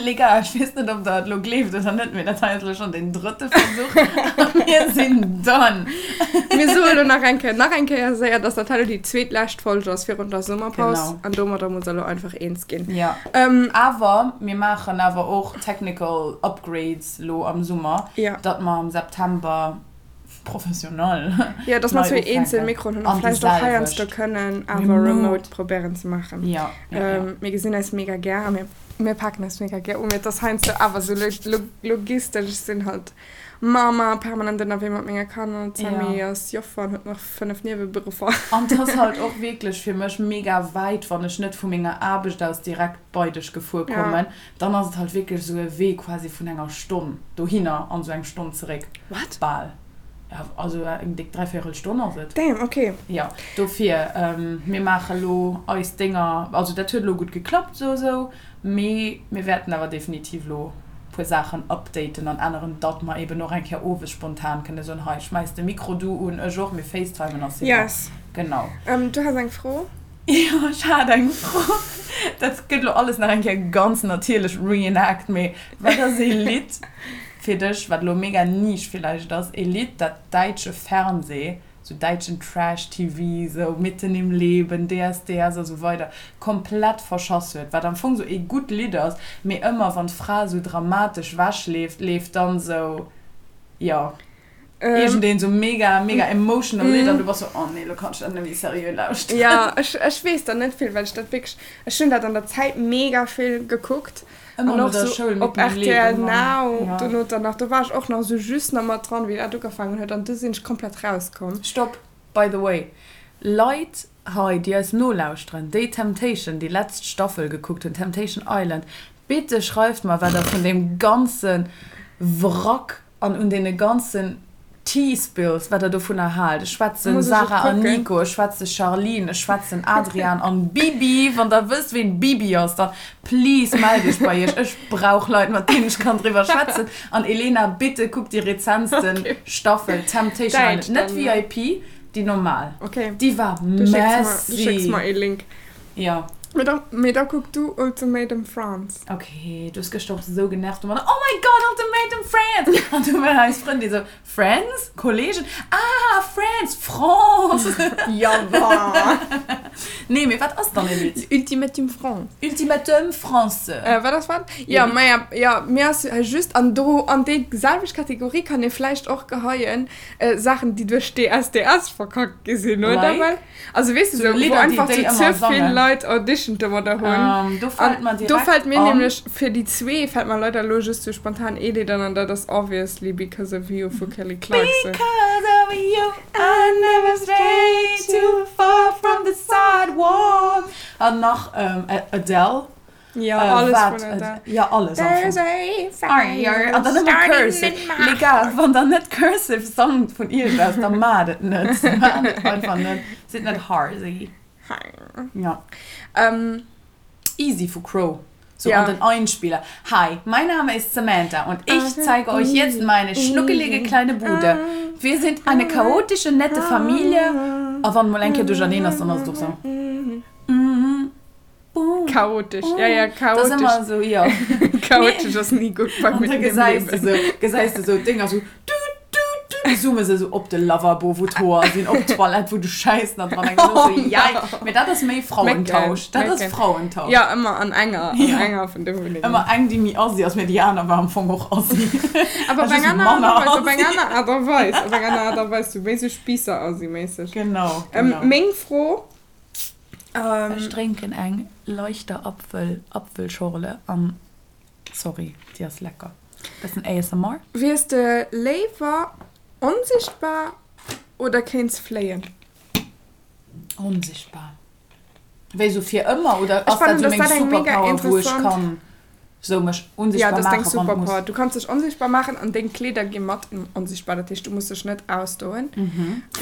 Les gars, ech weess net, ob der et elo gleeft oder net, mee dat hei ass elo schonn den drëtte Versuch a mir sinn done. Mir soe elo nach eng Kéier, nach eng Kéier séier, dass dat hei elo déi zweetlescht Folg ass virun der Summerpaus. Genau. An domadder muss der elo einfach eens ginn. Jo. Awer mir maachen awer och technical upgrades elo am Summer, datt mer am September professionell Jo, dass mer zwee eenzel Mikroen hunn a vläicht och heiansdo kënnen awer remote probéieren ze maachen. Jo, jo, jo. Mir gesinn eis mega gär a mir, mir paken eis mega gär u. Mee et ass heiansdo awer esou logistesch, ech sinn halt Mama, permanent ënnerwee mat menge Kanner, d'Sammy ass Joffer an huet nach 5 Nieweberuffer. An et ass halt och wierklech fir mech mega wäit, wann ech net vu menger Aarbecht aus direkt bei dech gefuer kommen. Dann ass et halt wierklech esou e Wee quasi vun enger Stonn dohinner an esou eng Stonn zeréck. What? Bal. Ja, also eng déck dräivéierel Stonn ass et. Damn, okay. Jo, dofir, mir maache lo eis Dénger, also dat huet elo gutt geklappt esou esou, mee mir wäerten awer definitiv elo e puer Saachen updaten an änneren, datt mer eben och eng Kéier owes spontan kënne soen, hei, schmäiss de Mikro du un, ech och, mir facetimen a c'est bon. Yes. Genau. Du has eng Fro? Jo, ech hat eng Fro. Dat gëtt elo alles nach eng Kéier ganz natierlech reenact, mee wat ass ee Lidd fir dech, wat elo mega niche villäicht ass, ee Lidd, dat däitsche Fernseh, sou däitschen Trash-TV, sou Mitten im Leben, DSDS a sou weider, komplett verschass huet, wat am Fong sou ee gutt Lidd ass, mee ëmmer wann d'Fra sou dramatesch wechleeft, leeft dann sou, jo. Iergendeen sou mega, mega emotional Lidd an du bass sou, oh nee, lo kann ech dat net méi seriö lauschteren. Jo, ech, ech weess der net vill, well ech dat wierklech, ech hunn dat an der Zäit mega vill gekuckt. Ëmmer An no och der sou Schoul op mitten im rtl Leben, Mann. Now, Ja. dono dann nach, do war ech och nach sou just nach mat dran, wéi dat ugefaangen huet an du sinn ech komplett rauskomm. Stopp, by the way, Leit hei, déi eis nolauschteren, déi Temptation, déi letzt Staffel gekuckt hunn, Temptation Island, bitte schreift mer, wat der vun deem ganze Wrack An un deene ganzen Tea Spills, wat der dovunner haalt. Ech schwätzen Sarah an Nico, ech schwätze Charline, ech schwätzen Adrian an Bibi. Wann der wësst, ween Bibi ass, da please mellt iech bei iech. Ech brauch Leit, mat deenen ech kann driwwer schwätzen. An Elena, bitte kuck déi rezentsten Staffel Temptation Island. Net VIP, déi normal. Déi war messy. Du schécks mer ee Link. Jo. Mee da, mee da kuck du Ultimatum France. Ok, du hues gëschter och esou genervt domadder, Oh my God, Ultimatum France! An du war eis Frëndin esou, Friends? Kollegen? Ah, France! France! Ja wa! Nee, mee wat ass dann e Lidd? Ultimatum France. Ultimatum France. Wat ass wat? Jo, maja, jo, mir ass just, an do, an déi selwecht Kategorie kann ee vläicht och geheien, Saachen, déi duerch DSDS verkackt gi sinn, oder? Like? Well, also weess de, Sou sou, wou Lidder, déi einfach déi sou ëmmer ze vill sangen. Leit Audition domadder hunn. Ähm, do fält An mer do direkt fält mir an. nämlech, fir déi zwee fält mer leider elo just sou spontan ee Lidd an, an dat ass obviously Because of You vu Kelly Clarkson. Because of you I never stray too far from the sidewalk. An nach ähm, Adele. Ja, alles wat, vun Adele. Ja, alles am Fong. There's a fire An dann ëmmer starting Cursive. in my Les gars, wann der net Cursive sangt vun iech aus, da maacht et net. Maacht et einfach net. Sidd net harsy. Ja. Ähm, Easy vu Cro. So Ja. an den Einspieler. Hi, mein Name ist Samantha und ich zeige euch jetzt meine schnuckelige kleine Bude. Wir sind eine chaotische, nette Familie. A wann mol eng Kéier duercherneen ass, dann ass et och sou. Chaotisch, ja, ja, Das ist chaotisch. immer so, ja. Chaotisch ass ni gutt bei Und mir da im gesäis de Liewen. sou, gesäis de sou d'Dénger sou, tut, tut, tut, da zoome se sou op de Lavabo, wou d'Hoer sinn, op d'Toilette, wou de Schäiss nach dran hänkt. Und du so, jei. Mee dat ass méi Frauentausch. Dat ass Mécken. Frauentausch. Ja, ëmmer an enger, an Ja. enger vun de Wunnengen. Ëmmer eng, déi méi assi ass, mee déi aner war am Fong och assi. Awer op Just eng aner Aart manner a Weis, op eng assi. aner Aart a Weis, op eng aner Aart a Weis, sou méi sou Spiisser-assi-méisseg. Genau, Ähm, genau. meng Fro, Ähm. Ech drénken eng leichter Apfel Apfelschorle an sorry, déi ass lecker. Bessen ASMR. Wiers de léiwer onsichtbar oder kéints fléien? Onsichtbar. Wéi sou fir ëmmer oder Ech ass dat fannen, sou dass meng dat eng mega Superpower wou ech interessant. kann Sou mech Ja, unsichtbar dat ass deng maachen, wann et muss. Superpower. Du kanns dech onsichtbar maachen an deng Kleeder gi mat onsichtbar. Dat heescht, du muss dech net ausdoen.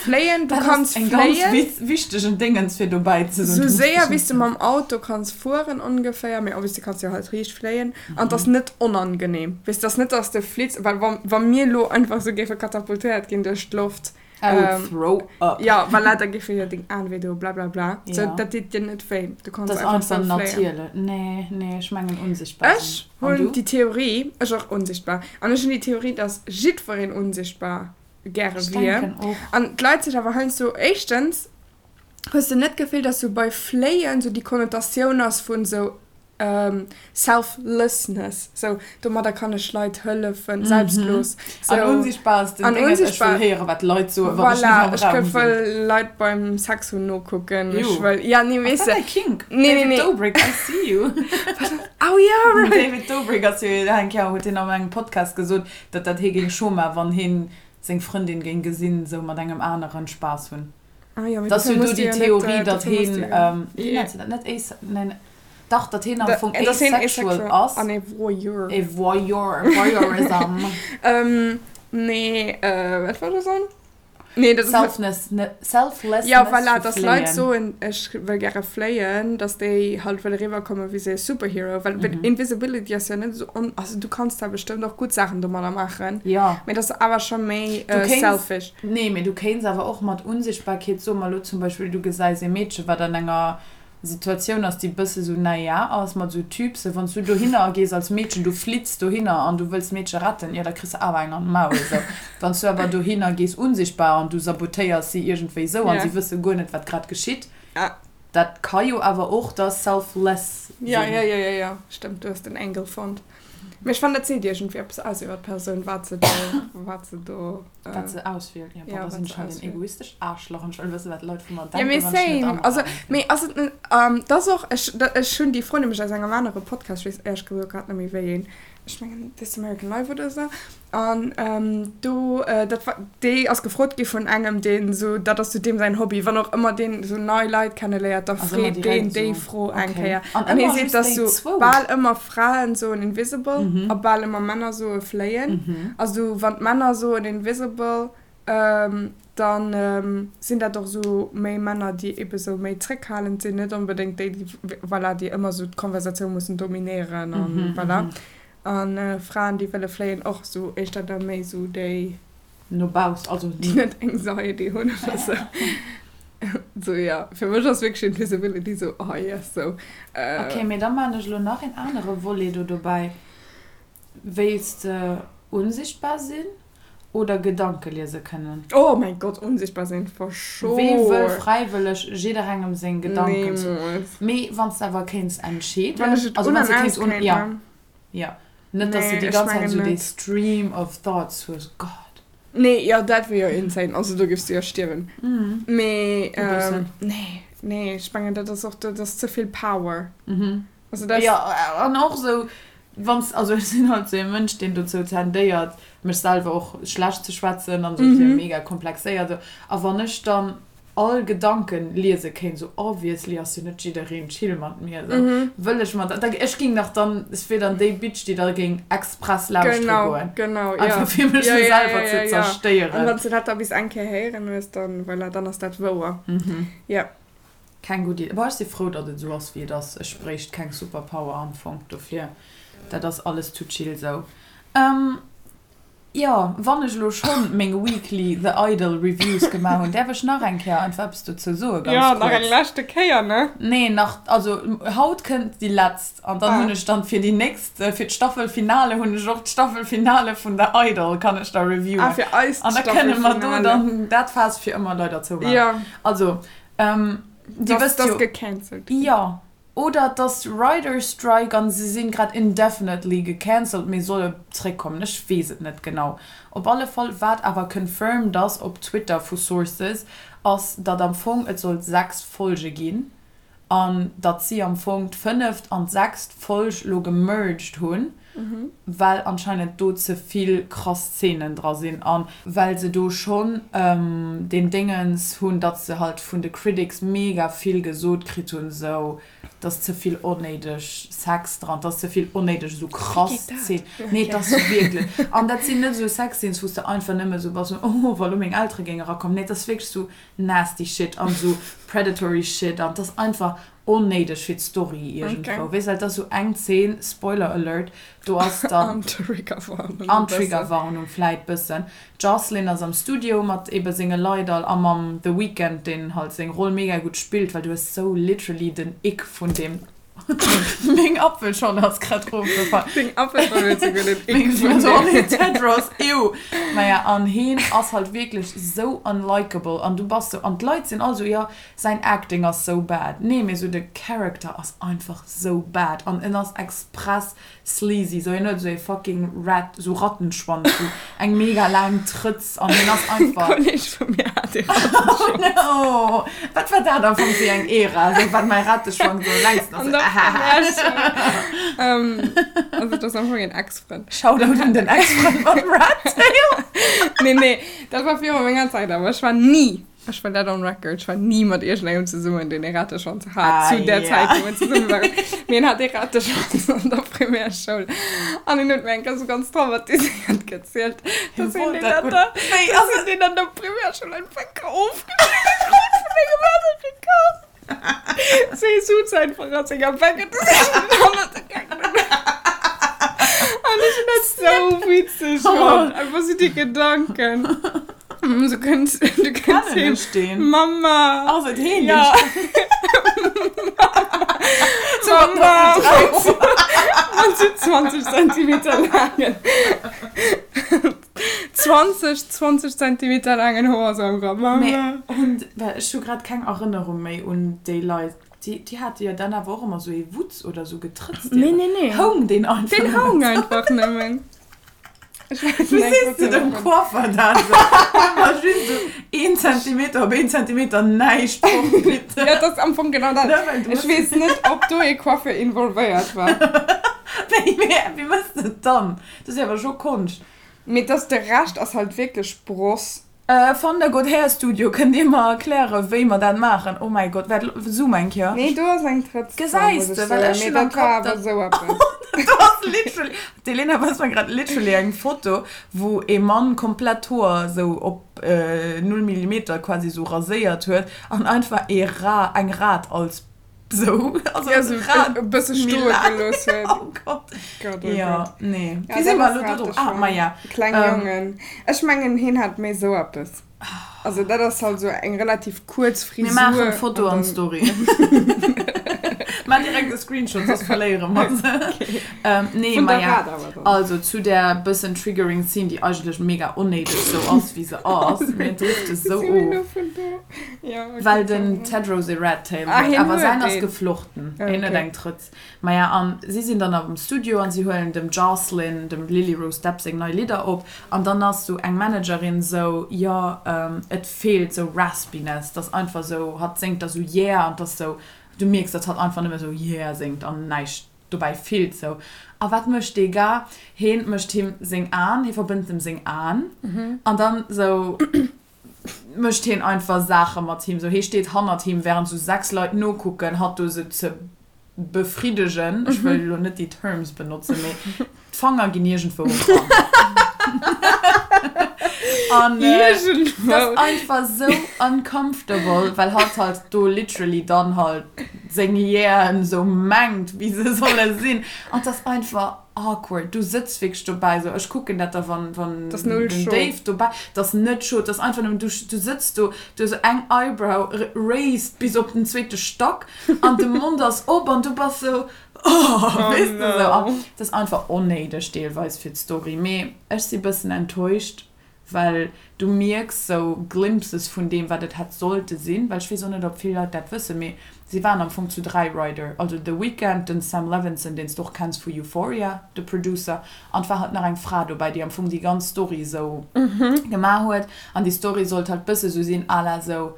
Fléien, du Dat ass kanns eng ganz fléien. witz wichtegen Dingens fir dobäi ze soen. Sou Du muss séier dech wéi s net de mam Auto kanns fueren ongeféier, mee obviously kanns du jo halt riicht fléien. An et ass net onangenehm. Weess, et ass net, dass de flitts, well wa wa mir elo einfach sou géife katapultéiert ginn duerch d'Loft. I would throw up. Jo, voilà, da géife jo deng Aen wéi do, blablabla. Sou, dat deet dir net wéi. Du kanns einfach sou fléien. Dat ass einfach natierlech. Nee, nee, ech mengen unsichtbar sinn. Ech hunn déi Theorie, ech och unsichtbar, an ech hunn déi Theorie, dass jiddwereen unsichtbar gäre wier. An d'Leit sech awer heiansdo, éischtens, hues de net d'Gefill, dass sou bei fléien sou déi Konnotatioun ass vun sou Selflessness, sou domadder kann ech Leit hëllefen, selbstlos. An unsichtbar ass den Déngens, ech wëll héieren, wat d'Leit soen, wann ech net am Raum sinn. Voilà, ech wëll Leit beim Sex hunn nokucken, ech wëll, ja, nee, weess de. Ass dat däi Kink? Nee, nee, nee. David Dobrik, I see you. Oh ja, right. David Dobrik ass jo eng Kéier, huet hien an engem Podcast gesot, datt dat hie géing scho maachen, wann hien seng Frëndin géing gesinn, sou mat engem aneren Spaass hunn. Ah jo, mee Dass dofir jo do muss du déi jo net, Theorie, datt dofir muss hien, du jo. wéi nennt se dat, net ace, neen, dach, datt hien am Da, Fong dass hien asexual asexual ass. an e Voyeur. E Voyeur, Voyeurism. Nee, wat wollt ech soen? Nee, dat ass. Selfness, Selflessness Ja, voilà, vu dass Leit Fléien. soen, ech wëll gäre fléien, dass déi halt wëlle riwwerkomme wéi sou e Superhero, well Invisibility ass jo net esou on, also du kanns da bestëmmt och gutt Saachen domadder maachen, Jo. mee dat ass awer scho méi Du kéints, selfish. Nee, mee du kéints awer och mat Unsichtbarkeet, soe mer elo zum Beispill, du gesäis ee Meedche wat an enger Situatioun ass, déi bësse sou naja ass, mat sou Typsen, wann s du dohinner gees als Meedchen, du flitts dohinner an du wëlls d'Meedche retten, jo da kriss de awer eng an d'Maul esou. Wann s du awer dohinner gees unsichtbar an du sabotéiers si iergendwéi esou an si wësse guer net wat grad geschitt, dat ka jo awer och da selfless sinn. Jo, jo, jo, jo, jo, stëmmt, du hues den Angle fonnt. Mee ech fannen, dat seet iergendwéi eppes aus iwwer d'Persoun, wat se do, wat se do. Wat se auswielt. Ja, boah, da sinn ech halt en egoistescht Aarschlach an ech wëll wëssen, wat d'Leit vu mer denken, wann ech net am Raum sinn. Mee ass et net, dat ass och, ech, ech hunn déi Fro nämlech aus engem anere Podcast, ech weess éierlech gesot grad net méi wéi een, ech mengen This American Life oder esou, An do, dat war, déi ass gefrot gi vun engem, deen esou, dat ass sou deem säin Hobby, wann och ëmmer deen esou nei Leit kenneléiert, da freet deen déi Fro eng Kéier. An hie seet, dass sou bal ëmmer Fraen soen invisible a bal ëmmer Männer soe fléien. Also wann d'Männer soen invisible, da sinn dat och esou méi Männer, déi ebe sou méi zréckhalend sinn, net onbedéngt déi, déi, voilà, déi ëmmer sou d'Konversatioun mussen dominéieren an voilà. An Fraen déi wëlle fléien och sou éischter da méi sou déi. No bauss, also. Déi net Anxiety hunn oder sou. Sou jo, fir mech ass wierklech Invisibility sou oh yes sou. Ok, mee da maan ech elo nach een anere Volet do dobäi. Wéilts de unsichtbar sinn oder Gedanke liese kënnen? Oh mäin Gott, unsichtbar sinn for sure. Wee wëll fräiwëlleg jidderengem seng Gedanken zu. Niemools. Mee wann s de awer kéints entscheeden. Wann ech et also un wann s an de kéints aus un, kéint, ja. ne? Jo, net dass de Nee, déi ech ganz Zäit mengen esou dee net. Stream of thoughts hues, Gott. Nee, jo, dat wier jo insane, also do giffs du jo stierwen. Mee, E bëssen. nee, nee, ech mengen dat ass och, dat ass ze vill Power. Also dat. Jo, an och esou, wann s, also ech sinn halt esou ee Mënsch, deen dozou tendéiert, mech selwer och schlecht ze schwätzen an esou, ech si jo mega komplexéiert esou, a wann ech dann all Gedanken liese kéint, sou obviously ass jo net jiddereen chill mat mir, sou wëll ech mer da, ech ging nach dann, ech wier dann déi Bitch, déi da géing express lauschtere goen, genau, einfach ja. fir mech ja, sou ja, selwer ja, ze ja, ja. An zerstéieren. wann s de dat da bis eng Kéier héieren hues, dann, voilà, dann ass dat wouer. Ja. Keng gutt Idee. Boah, ech si frou, datt et sou ass, wéi et ass. Ech bréicht keng Superpower am Fong dofir. Dat ass alles too chill sou. Jo, wann ech elo schonn meng weekly The Idol Reviews gemaach hunn, däerf ech nach eng Kéier einfach eppes dozou soe ganz Jo, nach eng kuerz? leschte Kéier, ne? Nee, nach, also haut kënnt déi letzt an dann hunn ech dann fir déi nächst, fir d'Staffelfinale hunn ech och d'Staffelfinale vun The Idol kann ech da reviewen. Ah, fir eis An da kënne mer do d'Staffelfinale. dann dat Faass fir ëmmer leider zoumaachen. Jo. Also, Dir Dass wësst dass jo. gecancelt ginn. Jo. Oder et ass Writers Strike an se sinn grad indefinitely gecancelt mee solle zréckkommen. Ech weess et net genau. Op alle Fall wat awer confirmed ass op Twitter vu Sources ass datt am Fong et sollt 6 Folge ginn an datt si am Fong d'fënneft an d'sechst Folg lo gemerged hunn well anscheinend do ze vill krass Szenen dra sinn an well se do schonn deen Déngens hunn, datt se halt vun de Critics mega vill gesot kritt hunn, sou dass ze vill onnéideg Sex dran, dass ze vill onnéideg esou krass Szenen. Nee, et ass wierklech, an dat sinn net esou Sexscenes, wou s de einfach nëmme sou bass, oh, wa lo meng Eltere géinge erakommen. Nee, et ass wierklech sou nasty shit an esou predatory shit an et ass einfach. Onnéideg fir d'Story iergendwou. Weess, well et ass sou eng Zeen, Spoiler Alert, do ass dann. An Triggerwarnung e An Triggerwarnung vläit bëssen. D'Jocelyn ass am Studio mat ebe senge Leit all a mam The Weeknd, deen halt seng Roll mega gutt spillt, well du hues sou literally den Ick vun deem. Meng Apfelschorle ass grad rofgefall. Deng Apfelschorle huet souguer den Ick vun deem. Oh nee, Tedros, ew. Naja, an heen ass halt wierklech sou unlikeable an du bass sou, an d'Leit sinn all sou, jo, Säin Acting ass sou bad. Nee, mee sou de Character ass einfach sou bad an en ass express sleazy. Sou hien huet sou ee fucking rat, sou Rattenschwanz, sou eng mega laang Trëtz an hien ass einfach. E Kolleg vu mir hat ee Rattenschwanz. Oh no! Wat war dat am Fong fir eng Ära, sou wat mäi Ratteschwanz am längsten ass. An der Primärschoul. Also et ass am Fong een Ex-Frënd. Shoutout un den Ex-Frënd mam Rat Tail. Nee, nee, dat war viru menger Zäit, awer ech war ni. Ech wëll dat on record, ech war ni mat iergendengem zesummen, deen ee Rateschwanz hat, Ah, zu där ja. Zäit, wou mir zesumme waren. Mee en hat ee Rateschwanz an der Primärschoul. An en huet mir eng Kéier sou ganz traumatiséiert gezielt, Hie dass hien wollt deen dat an gutt. der, Wéi dass ass hien et? deen an der Primärschoul einfach ofgeschnidde krut vun engem anere Kand. Si suz einfach a senger Bänk an hannert de Gaangen. An ech hunn dat sou witzeg fonnt. Einfach sou déi Gedanken. Du kënns, du kënns Kennen heem. ech deen? Mama. Ass et heen, deen Ja. Mama. Mat sou 20 Zentimeter laangen. 20, 20 Zentimeter laangen Hoer sou am Grapp. Mee hunn, well ech hu grad keng Erënnerung méi un déi Leit, déi, déi hate jo dann awer och ëmmer sou ee Wutz oder sou getrëtzt. Nee, nee, nee. Houng deen einfach Deen nëmmen? houng einfach nëmmen. Ech weess Wéi net, sees wat de se dem davon. Coiffer dat esou? Ëmmer just esou een Zentimeter op een Zentimeter näischt fort, bitte. Ja, dat ass am Fong genau dat. Ne, well du Ech hues. weess net, ob do ee Coiffeur involvéiert war. Wéi, wéi mëss de et dann? Dat ass jo awer scho Konscht. Mee dass de Rescht ass halt wierklech Bross. Van der God Hair Studio, kënnt Dir mer erklären wéi mer dat maachen? Oh mäi Gott, waart, zoom eng Kéier. Nee, do ass eng Trëtz dran, Gesäis muss ech de, well soen, ech mee hunn am dat war Kapp, awer dat esou eppes. do ass literally, d'Elena weist mer grad literally eng Foto, wou ee Mann komplett d'Hoer esou op null Millimeter quasi esou raséiert huet an einfach ee Ra, eng Rat als So, also ja, so Rad e bësse stoe gelooss huet. Oh Gott. Gott, oh ja, Gott. nee. Ja, Wéi si dat mer ass elo do drop? Rateschwanz. Ah, ma ja. Kleng Ähm. Jongen. Ech mengen, hien hat méi sou eppes. Also dat ass halt sou eng relativ kuerz Frisur. Mir maachen Foto an an dann- Story. Maach direkt e Screenshot, soss verléiere mer se. Ähm, nee, Vun ma der ja. Rad awer dann. Also zu där bëssen triggering Scene, déi eigentlech mega onnéideg sou ass, wéi se ass. Mir drifte sou Wéi si mir of. elo vun do? Ja, okay, Well den sorry. Tedros e Rat Tail Ah, huet, hien awer huet säin ass een. geflochten, Ah, hien huet okay. eng Trëtz. Maja, an si sinn dann am Studio an si huelen dem Jocelyn, dem Lily Rose Depp seng nei Lidder op an dann ass sou eng Managerin sou, jo, et feelt sou Raspiness, dass einfach sou, hatt séngt da sou yeah an dass sou, du mierks, dass hatt einfach nëmme sou yeah séngt an näischt dobäi fillt sou. A wat mécht dee Gars? Heen mécht him seng Aen, hie verbënnt em seng Aen an dann sou. mécht heen einfach Saache mat him, sou hee steet hannert him während sou 6 Leit nokucken, hatt do sou ze befriddegen, ech wëll elo net déi Terms benotzen, mee d'Fanger ginn iergendwou eran. An et ass einfach sou uncomfortable, well hatt halt do literally dann halt seng Yeahen sou mengt wéi se solle sinn, an et ass einfach. Awkward, du sëtz wierklech dobäi sou, ech kucken dat da wann wann T'ass null den scho. Dave dobäi, t'ass net scho, t'ass einfach nëmmen du du sëtz do, du hues eng Eyebrow raised bis op den zweete Stack an de Mond ass op an du bass sou oh, Oh weess de sou no. an t'ass einfach onnéideg deelweis fir d'Story, mee ech si bëssen enttäuscht Well du mierks sou Glimpses vun deem, wat et hätt sollte sinn. Well ech weess och net, ob vill Leit dat wëssen, mee si waren am Fong zu 3 Writer, also The Weeknd, den Sam Levinson, deen s de och kenns vu Euphoria, de Producer, an et war halt nach eng Fra dobäi, déi am Fong déi ganz Story sou gemaach huet. An déi Story sollt halt bësse sou sinn à la sou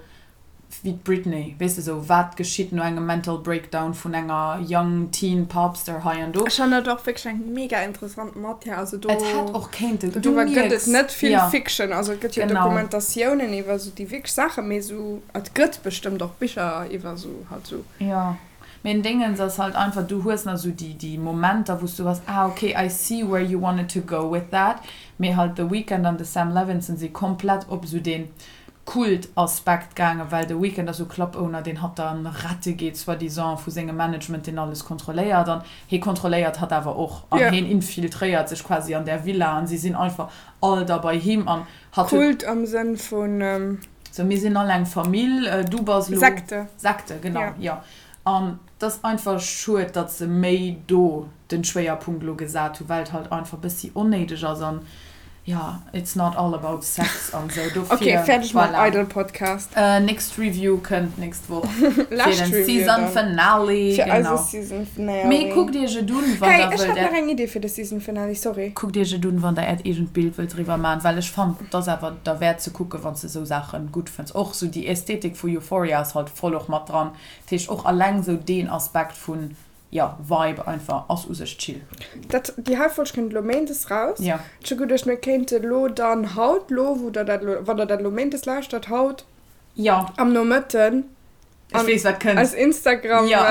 wéi d'Britney, weess de, sou wat geschitt no engem Mental Breakdown vun enger young teen Popstar hei an do. Ech fannen dat och wierklech eng mega interessant Matière, also do Et hätt och kéinten, du doriwwer gëtt et mierks, net vill jo, Fiction, also et gëtt jo genau. Dokumentatiounen iwwer sou déi wierklech Saachen, mee sou et gëtt bestëmmt och Bicher iwwer sou halt sou. Jo, mee den Dingens ass halt einfach, du hues nach sou déi déi Momenter wou s du bass, ah ok, I see where you wanted to go with that, mee halt The Weeknd an de Sam Levinson si komplett op sou deen. Kult-Aspekt gaangen, well de Weeknd ass sou Club-Owner, deen hatt dann rette geet, soi-disant, vu sengem Management, deen alles kontrolléiert. An hee kontrolléiert hatt awer och. An heen infiltréiert sech quasi an där Villa an si sinn einfach all da bei him an hatt huet. Kult am Sënn vun. Sou, mir sinn all eng Famill, du bass elo. Sekte. Sekte, genau, jo. An 't ass einfach schued, datt se méi do den Schwéierpunkt elo gesat hu, well et halt einfach bëssi onnéideg ass an jo, it's not all about sex an sou. Dofir, Ok, fäerdeg mam voilà. Idol Podcast. Nächst Review kënnt nächst Woch fir Lescht den Review Season dann. Finale, Fir eise genau. Season Finale. Mee kuckt iech et un, wann Hey, der ech wëllt hat nach äert. eng Idee fir de Season Finale, sorry. Kuckt iech et un, wann der äert eegent Bild wëllt driwwer man, well ech fannen, et ass awer derwäert ze kucken, wann s de sou Saachen gutt fënns. Och sou déi Ästhetik vu Euphoria ass halt voll och mat dran. Dat heescht och alleng sou deen Aspekt vun, jo, Vibe einfach ass u sech chill. Dat, déi hei Folg kënnt elo méindes raus. Jo. Ech hu geduecht, mir kéinte lo dann haut, lo wou der dat elo, wann der dat elo méindes lauschtert, haut Jo. am Nomëtten Ech weess wat kënnt. eis Instagram. Jo.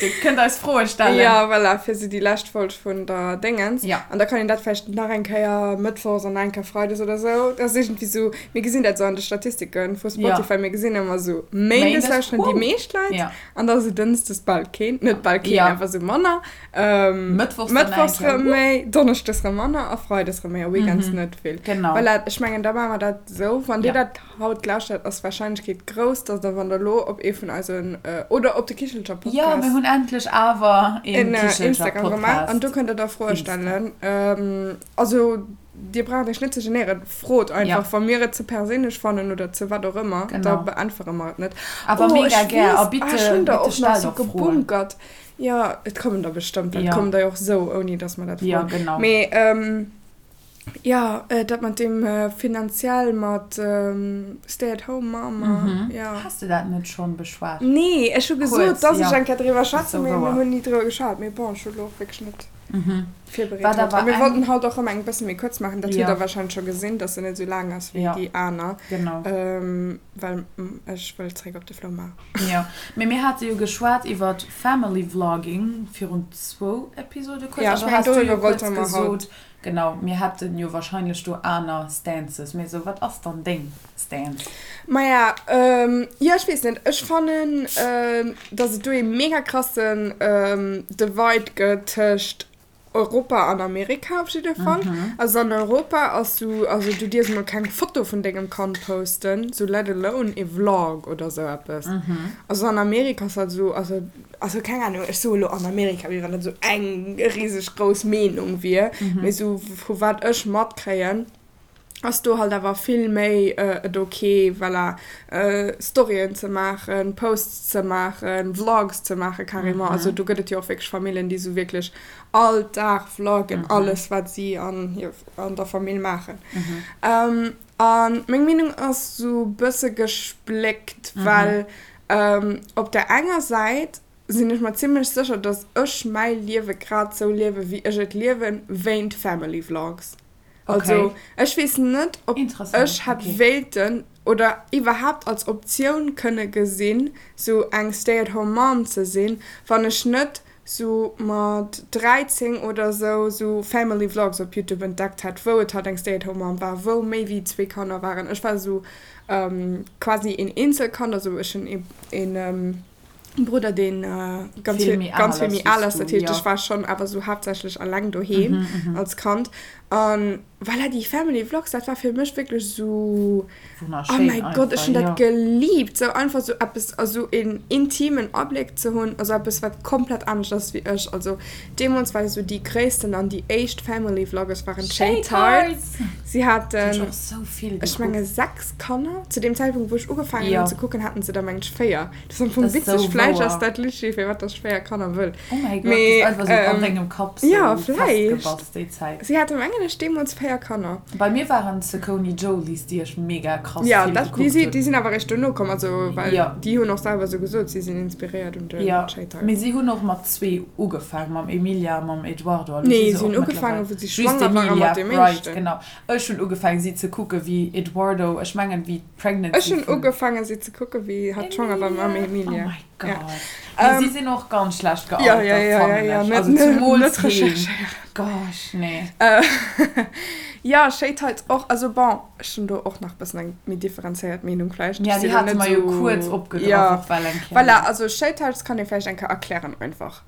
Dir kënnt eis Froe stellen. Jo, voilà, fir sou déi lescht Folg vun der Déngens. Jo. An da kann een dat vläicht nach eng Kéier mëttwochs an nach eng Kéier freides oder sou. Dat ass iergendwéi sou, mir gesinn dat sou an de Statistike vu Spotify, mir gesinn ëmmer sou, méindes lauschteren déi meescht Leit an da sou dënschdes bal keen, net bal keen, awer sou manner. Mëttwochs dann nach eng Kéier. Mëttwochs rëm méi, donneschdes rëm manner a freides rëm méi a weekends net vill. Genau. Voilà, ech mengen, da maache mer dat sou. Wann dir dat haut lauschtert, ass d'Warscheinlechkeet grouss, dass der, wann der elo op ee vun eisen, oder op de Kichelcher Podcast. Jo, mir hunn endlech awer een Kichelcher Instagram gemaach an do kënnt der da Froe stellen. Also dir braucht iech net ze genéieren, frot einfach, wa mir et ze perséinlech fannen oder ze wat och ëmmer, da beäntwere mer et net. Awer mega gär a bitte, bitte stellt och Froen. Gebunkert. Jo, et kommen der bestëmmt, well et kommen der jo och esou, ouni dass mer dat froen. Jo, genau. Mee. Jo, dat mat deem finanziell mat Stay at home mom, jo. Has de dat net schonn beschwat? Nee, ech hu gesot, dass ech eng Kéier driwwer schwätzen, mee mir hunn ni driwwer geschwat. Mee bon, ech hu lo och wierklech net virbereet haut. A mir wollten haut och erëm eng bësse méi kuerz maachen, dat hutt der warscheinlech scho gesinn, dass se net esou laang ass wéi déi aner, well ech wëll zréck op de Floumaart. Jo, mee mir hate jo geschwat iwwer Family Vlogging virun zwou Episode kuerz, an do has du jo kuerz gesot, Genau, mir hätten jo wahrscheinlech do aner Stances, mee esou, wat ass dann deng Stance? Maja, jo, ech weess net, ech fannen, dass et do ee mega krassen Divide gëtt tëscht Europa an Amerika op jidde Fall. Also an Europa ass sou, also du dierfs mol keng Foto vun dengem Kand posten, sou let alone e Vlog oder sou eppes. Also an Amerika ass dat sou, also Also keng Ahnung, ech soe lo an Amerika, wéi wann dat esou eng riseg grouss Meenung wier, mee esou vu wat ech matkréien, ass do halt awer vill méi et ok, voilà, Storyen ze maachen, Posts ze maachen, Vlogs ze maachen carrément. Also do gëtt et jo och wierklech Famillen, déi esou wierklech all Dag vloggen, alles wat si an hir, an der Famill maachen. A meng Meenung ass esou bësse gespléckt, well Op der enger Säit sinn ech mer zimlech sécher, dass ech mäi Liewe grad sou liewe wéi ech et liewen, wéint Family Vlogs. Also ech weess net, ob ech hätt wéilten oder iwwerhaapt als Optioun kënne gesinn, sou eng Stay at home Mom ze sinn, wann ech net sou mat 13 oder sou sou Family Vlogs op Youtube entdeckt hätt, wou et halt eng Stay at home Mom war, wou méi wéi zwee Kanner waren. Ech war sou quasi een Eenzelkand, also ech hunn een Brudder deen ganz vill ganz vill méi al ass, dat heescht ech war schonn awer sou haaptsächlech alleng doheem als Kand an voilà déi Family Vlogs dat war fir mech wierklech sou oh mäi Gott ech hunn dat geliebt, sou einfach sou eppes also een intimen Abléck ze hunn, also eppes wat komplett anescht ass wéi ech, also deemools war sou déi gréissten an déi éischt Family Vloggers waren d'Shay Tarts. Si haten, ech menge 6 Kanner. Zu deem Zäitpunkt, wou ech ugefaangen hunn ze kucken, haten se der mengen ech 4. Dat ass am Fong witzeg. Vläicht ass dat literally firwat dass ech 4 Kanner wëll. Oh mäi Gott, dat ass einfach sou an dengem Kapp sou festgebass déi Zäit. Si hate mengen ech deemools 4 Kanner. Bei mir waren d'Saucony Jolies, déi ech mega krass vill gekuckt hunn. Jo, déi sinn awer eréischt dono komm, also well déi hunn och selwer sou gesot, si sinn inspiréiert un de Shay Tarts. Mee si hunn och mat zwee ugefaangen, mam Emilia a mam Eduardo. Nee, si hunn ugefaangen, wou si schwanger waren mat deem éischten. Right, genau. Ech hunn ugefaangen si ze kucken wéi Eduardo, ech mengen wéi d'Pregnancy Ech hunn ugefaangen si ze kucken wéi hatt schwanger war mam Emilia. Oh my. Gott. Mee si sinn och ganz schlecht gealtert, fannen ech. Also zemools heen. Gosh, nee. Jo, Shay Tights och. Also bon, ech hunn do och nach bëssen eng méi differenzéiert Meenung vläicht. Ja, déi hate mer jo kuerz opgegraff och well eng Kéier. Voilà, also Shay Tights kann ee vläicht eng Kéier erklären einfach.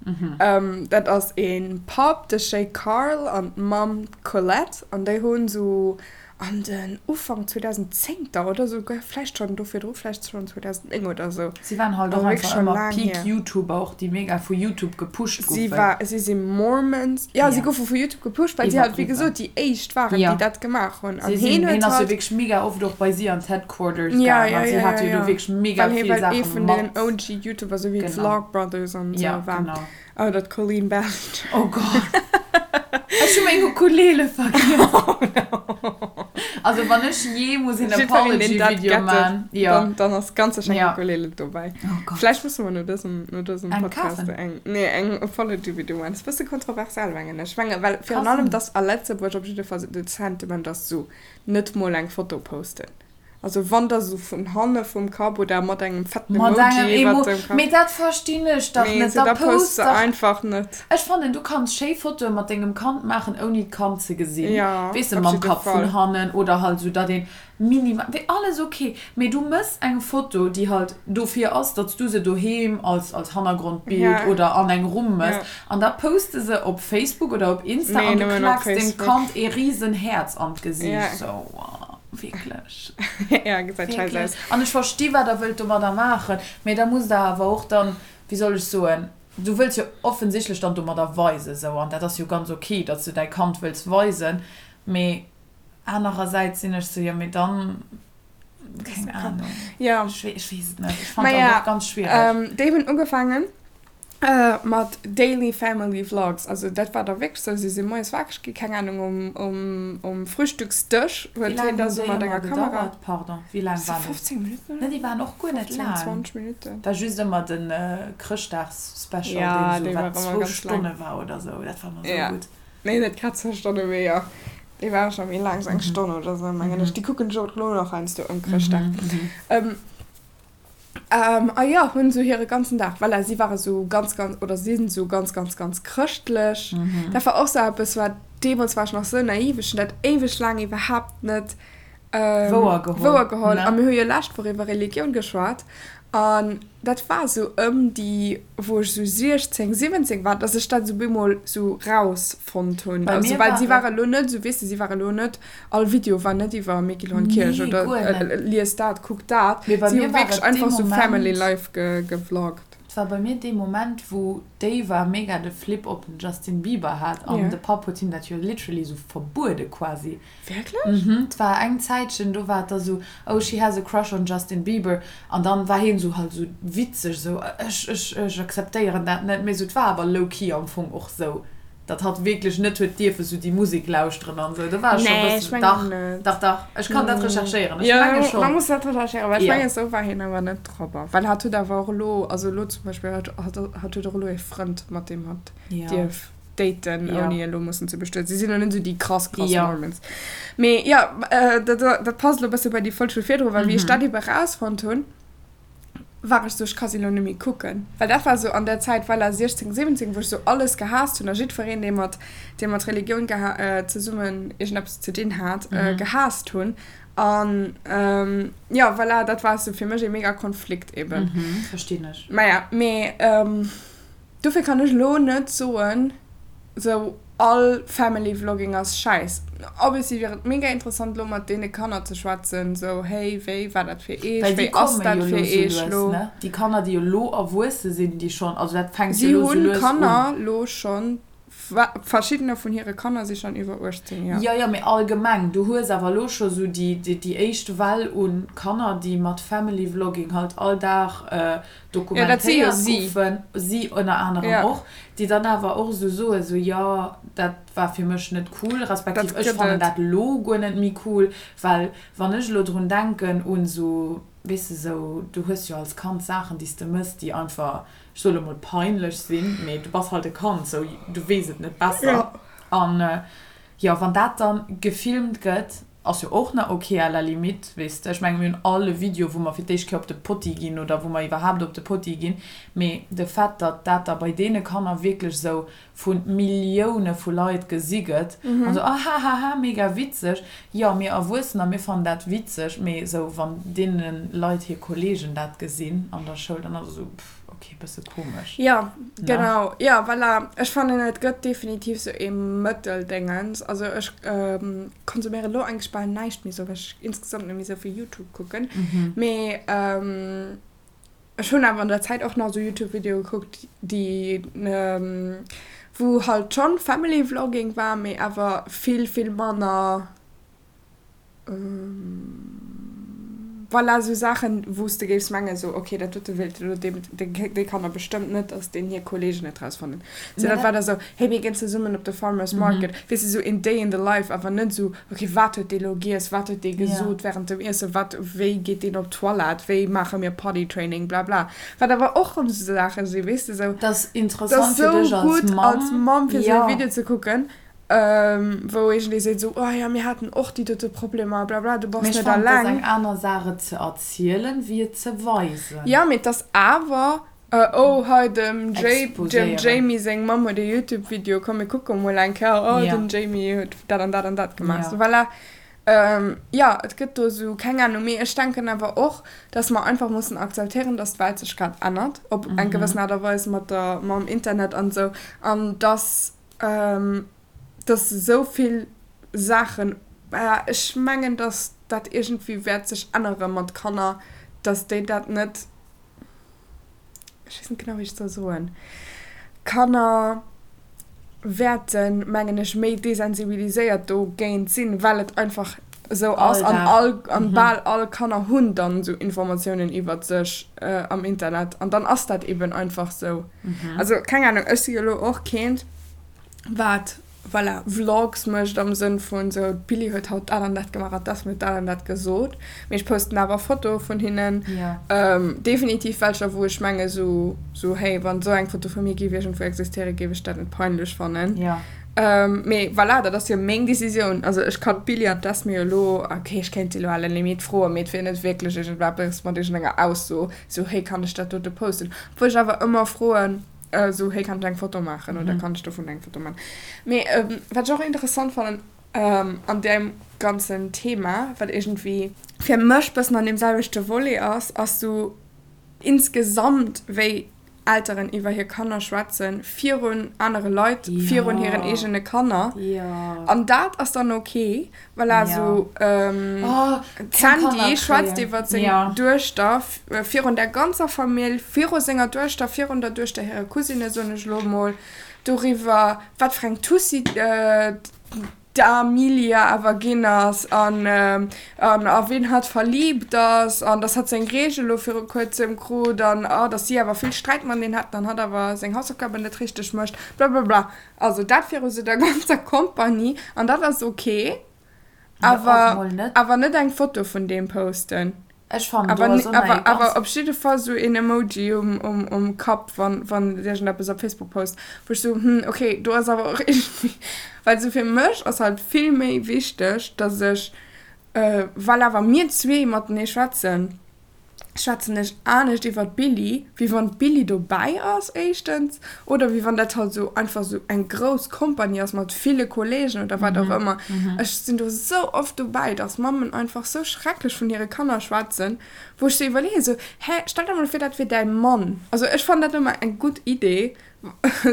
Dat ass ee Papp, de Shay Carl, an d'Mamm, d'Colette, an déi hunn esou An den Ufank 2010 er oder souguer vläicht schonn do virdru, vläicht schonn 2009 oder sou. Si waren halt och einfach ëmmer peak YouTuber och, déi mega vu YouTube gepusht goufen. Si war, si si Mormons. Jo, si goufe vu YouTube gepusht, well si halt wéi gesot déi éischt waren, déi dat gemaach hunn. An hien huet halt. Hien ass jo wierklech mega oft och bei si an d'Headquarters gaang an si hate jo do wierklech mega vill Saache mat. Well hie war ee vun deenen OG YouTuber, sou wéi d'Vlogbrothers an sou war. Oh, dat Colleen Ballinger. Oh Gott. Ech hu meng Ukulele vergiess. Oh no. Also wann ech jee muss een Apology-Video man. Ja. Dann, dann ass ganz sécher eng Ukulele dobäi. Oh Gott. Vläicht musse mer no dësem, no dësem Podcast eng, eng, nee, eng Apology-Video man. Ass e bësse kontroversiell, mengen ech. Menge, well virun allem, dass a Lëtzebuerg op jidde Fall de Sentiment ass sou, net mol eng Foto posten. Also wann da sou vun hanne vum Kapp oder mat engem fetten Emoji iwwert dem Kapp. Mee dat verstinn ech dach net. Nee, da post se einfach net. Ech fannen du kanns schéi Fotoe mat dengem Kand maachen ouni d'Kand ze gesinn. Weess de mam Kapp vun hannen oder halt sou datt een minimal, wéi alles ok. Mee du mëss eng Foto déi halt dofir ass datts du se doheem als als Hannergrondbild oder an eng Rumm mëss an da post de se op Facebook oder op Insta an du klaaks dem Kand ee riesen Häerz an d'Gesiicht. Sou. Wierklech. Ja, gesäit scheiss aus. An ech versti wat der wëllt domadder maachen, mee da musst der awer och dann, wéi soll ech soen, du wëlls jo offensichtlech dann domadder weisen, sou, an dat ass jo ganz ok, datt s du däi Kand wëlls weisen, mee anerersäits sinn ech sou, jo mee dann, keng Ahnung, ech weess et net, ech fannen dat och ganz schwiereg. Déi hunn ugefaangen Mat Daily Family Vlogs, also dat war da wierklech sou, si si moies wakereg gi, keng Ahnung, um, um, um Frühstücksdësch huet hien da sou mat enger Kamera. Pardon, wéi laang waren déi? 15 Minutten oder? Ne, déi waren och guer net laang. 15, 20 Minutten. War just ëmmer de Chrëschtdags-Special, deen sou wat zwou Stonne war oder sou, dat war ëmmer sou gutt. Nee, net grad zwou Stonne, mee jo, déi war scho méi laang, sou eng Stonn oder sou, mengen ech. Déi kucken ech och elo nach heiansdo ëm Chrëschtdag. A jo, hunn esou hire ganzen Dag, voilà, si ware sou ganz, ganz, oder sinn sou ganz, ganz, ganz chrëschtlech. Dat war och sou eppes, wat, deemools war ech nach sou naiv, ech hunn dat éiweg laang iwwerhaapt net wouer geholl. A mir hu jo lescht Woch iwwer Religioun geschwat an dat war sou ëm déi, wou ech sou 16, 17 war, dass ech dat sou bemol sou rausfonnt hunn. Also, well si ware lo net sou, weess de, si ware lo net All Video war net iwwer Miquelon Kierch Nee, oder guer net. lies dat, kuck dat. Mee bei Si hu mir war wierklech et dee einfach sou Family Moment, Life ge gevloggt. Et war bei mir dee Moment, wou d'Ava mega de Flip op den Justin Bieber hat an Ja. de Papp huet him dat jo literally sou verbuede quasi. Wierklech? Mhm, et war eng Zäitchen, do war et da sou, oh she has a crush on Justin Bieber an dann war hien sou halt sou witzeg sou, ech, ech, ech akzeptéieren dat net. Mee sou, et war awer low-key am Fong och sou. Datt hatt wierklech net huet dierfe sou déi Musek lauschteren an sou, do war ech scho Nee, ech bëssen, mengen dach, net. dach, dach, ech kann dat recherchéieren, ech Jo, menge da schonn. muss dat recherchéieren, well ech Jo. mengen, sou war hien awer net drop. Well hatt huet awer och elo, also elo zum Beispill, hatt, hatt, hatt huet och elo ee Frënd, mat deem hatt Jo. dierf daten, Jo. ouni elo mussen ze bestueden. Si sinn elo net sou déi krass, krass Jo. Mormons. Mee jo, dat, dat passt elo e bësse bei déi Folg vu virdru, well wéi ech dat ebe rausfonnt hunn, war ech sou, ech ka si lo net méi kucken. Well dat war sou an der Zäit, voilà, 16, 17, wou ech sou alles gehaasst hunn a jiddwereen, dee mat, dee mat Religioun geha zesummen iergendeppes ze dinn hat, gehaasst hunn. An jo, voilà, dat war sou fir mech ee mega Konflikt eben. Verstinn ech. Maja, mee Dofir kann ech elo net soen, sou all Family Vlogging ass schäiss. Obviously wier et mega interessant elo mat deene Kanner ze schwätzen, sou hey wéi war dat fir eech, Well déi wéi ass komme dat jo fir elo sou eech lues, lo. ne? Déi Kanner déi elo erwuesse sinn, déi schonn, also dat fänkt jo Si elo sou hunn lues un. Kanner lo schonn, verschiddener vun hire Kanner si schonn iwwer 18, jo. Jo, jo, mee allgemeng, du hues awer elo scho sou déi, déi éischt Well u Kanner, déi mat Family Vlogging halt all Dag dokumentéiert goufen, si ënner anerem och, déi dann awer och esou soen, esou jo, dat war fir mech net cool, respektiv ech fannen dat elo guer net méi cool, well wann ech elo drun denken un esou, weess de, esou, du hues jo als Kand Saachen, déi s de mëss, déi einfach, ech soe lo mol peinlech sinn, mee du bass halt e Kand, esou, du weess et net besser. An jo, wann dat dann gefilmt gëtt. Ass jo och nach ok à la limite, weess de. Ech mengen, mir hunn all e Video, wou mer fir d'éischt Kéier op de Potti ginn oder wou mer iwwerhaapt op de Potti ginn. Mee de Fait, datt dat da bei deene Kanner wierklech esou vu Millioune vu Leit gesi gëtt an esou, ahahaha, mega witzeg. Jo, mir Erwuessener, mir fannen dat witzeg, mee esou wann deene Leit hir Kollegen dat gesinn an der Schoul, dann ass et esou, pff, ok, bësse komesch. Jo, genau. Jo, voilà. Ech fannen, et gëtt definitiv esou ee Mëtteldéngens. Also ech konsuméieren elo eigentlech bal näischt méi esou, well ech insgesamt net méi esou vill YouTube kucken. Mee ech hunn awer an der Zäit och nach esou YouTube-Videoe gekuckt, déi, wou halt schonn Family Vlogging war, mee awer vill, vill manner. Voilà, esou Saachen, wou s de géifs mengen, esou, ok, dat dote wéilt elo deem, déi Kanner bestëmmt net, dass deen hir Kolleegen et rausfannen. Sou, dat war da sou, hey, mir ginn zesummen op de Farmers Market, weess de, sou een Day in the life, awer net esou, ok, wat huet dee lo giess, wat huet dee gesot während dem Iessen, wat, wéi geet deen op d'Toilette, wéi maache mir Potty Training, bla bla. Wat awer och rëm esou Saache sinn, weess de, sou. Dat ass interessant fir dech als Mamm. Dat ass sou gutt als Mamm, fir esou e Video ze kucken. Wou iergendee seet esou, oh jo, mir haten och déi dote Problemer, bla bla, du bass net alleng. Mee ech fannen, et ass eng aner Saach et ze erzielen, wéi et ze weisen. Jo, mee et ass awer, oh hei dem Jamie seng Mamm huet e Youtube-Video, komm mir kucke mol eng Kéier, oh den Jamie huet dat an dat an dat gemaach. Sou voilà. Jo, et gëtt do esou, keng Ahnung. Mee ech denken awer och, dass mer einfach mussen akzeptéieren, dass d'Welt sech grad ännert op eng gewëssen Aart a Weis mat der, mam Internet an esou, an dass dass esou vill Saachen, ech mengen, dass dat iergendwéi wäert sech ännere mat Kanner, dass déi dat net, ech weess net genau, wéi ech et soll soen, Kanner wäerten, mengen ech, méi desensibiliséiert dogéint sinn, well et einfach esou ass an all, an bal all Kanner hunn dann esou Informatiounen iwwert sech am Internet an dann ass dat eben einfach esou. Also keng Ahnung, ech si jo elo och keent wat, voilà, Vlogs mécht am Sënn vun esou d'Billie huet haut dat an dat gemaach an d'Esme huet dat an dat gesot, mee ech posten awer Fotoe vun hinnen, definitiv welcher wou ech menge sou, sou hey, wann esou eng Foto vu mir géif iergendwou existéieren, géif ech dat net peinlech fannen. Mee voilà, dat ass jo meng Decisioun. Also ech kann d'Billie an d'Esme jo elo, ok, ech kéint si elo à la limite froen, mee et wier net wierklech iergendeppes mat iergendenger Ausso, sou hey, kann ech dat dote posten? Obwuel ech awer ëmmer froen, sou hey, kann ech eng Foto maachen oder kann ech dovun eng Foto maachen? Mee wat ech och interessant fannen an deem ganzen Thema, wat iergendwéi fir mech bëssen an deem selwechte Volet ass, ass sou insgesamt wéi Elteren iwwer hir Kanner schwätzen, virun anere Leit, virun hiren eegene Kanner. An dat ass dann ok, voilà, sou d'Sandy schwätzt iwwer seng Duechter virun der ganzer Famill, viru senger Duechter, virun der Duechter hire Cousine, soen ech elo emol, doriwwer, wat fir eng Tussi d'Amelia awer ginn ass an a wien hatt verliebt ass an dass hatt seng Reegel elo viru kuerzem krut an oh dass si awer vill Sträit mateneen haten an hatt awer seng Hausaufgaben net richteg mécht blablabla. Also dat viru sou der ganzer Kompanie an dat ass ok, awer awer net eng Foto vun deem posten. Ech fannen do ass och nach ee ganz. Awer op jidde Fall sou een Emoji um Kapp wann wann iergendeppes op Facebook post, wou ech sou hm ok do ass awer och iergendwéi, well sou fir mech ass halt vill méi wichteg dass ech, well awer mir zwee matenee schwätzen, schwätzen ech anescht iwwer d'Billie wéi wann d'Billie dobäi ass éischtens oder wéi wann dat halt sou einfach sou eng grouss Kompanie ass mat ville Kollegen oder wat och ëmmer. Ech sinn do sou oft dobäi, dass Mammen einfach sou schrecklech vun hire Kanner schwätzen, wou ech sou iwwerleeën, sou, hä, stell der mol vir, dat wier däi Mann. Also ech fannen dat ëmmer eng gutt Idee,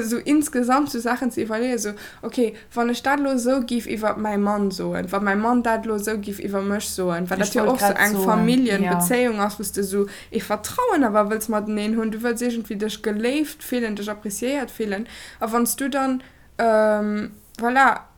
sou insgesamt sou Saachen ze iwwerleeën, sou, ok, wann ech dat elo esou giff iwwer mäi Mann soen, wa mäi Mann dat elo esou giff iwwer mech soen, well dat jo och sou eng Familljenbezéiung ass, wou s de sou ee Vertrauen awer wëlls mateneen hunn, du wëlls iergendwéi dech geléift fillen, dech appréciéiert fillen, a wann s du dann, voilà,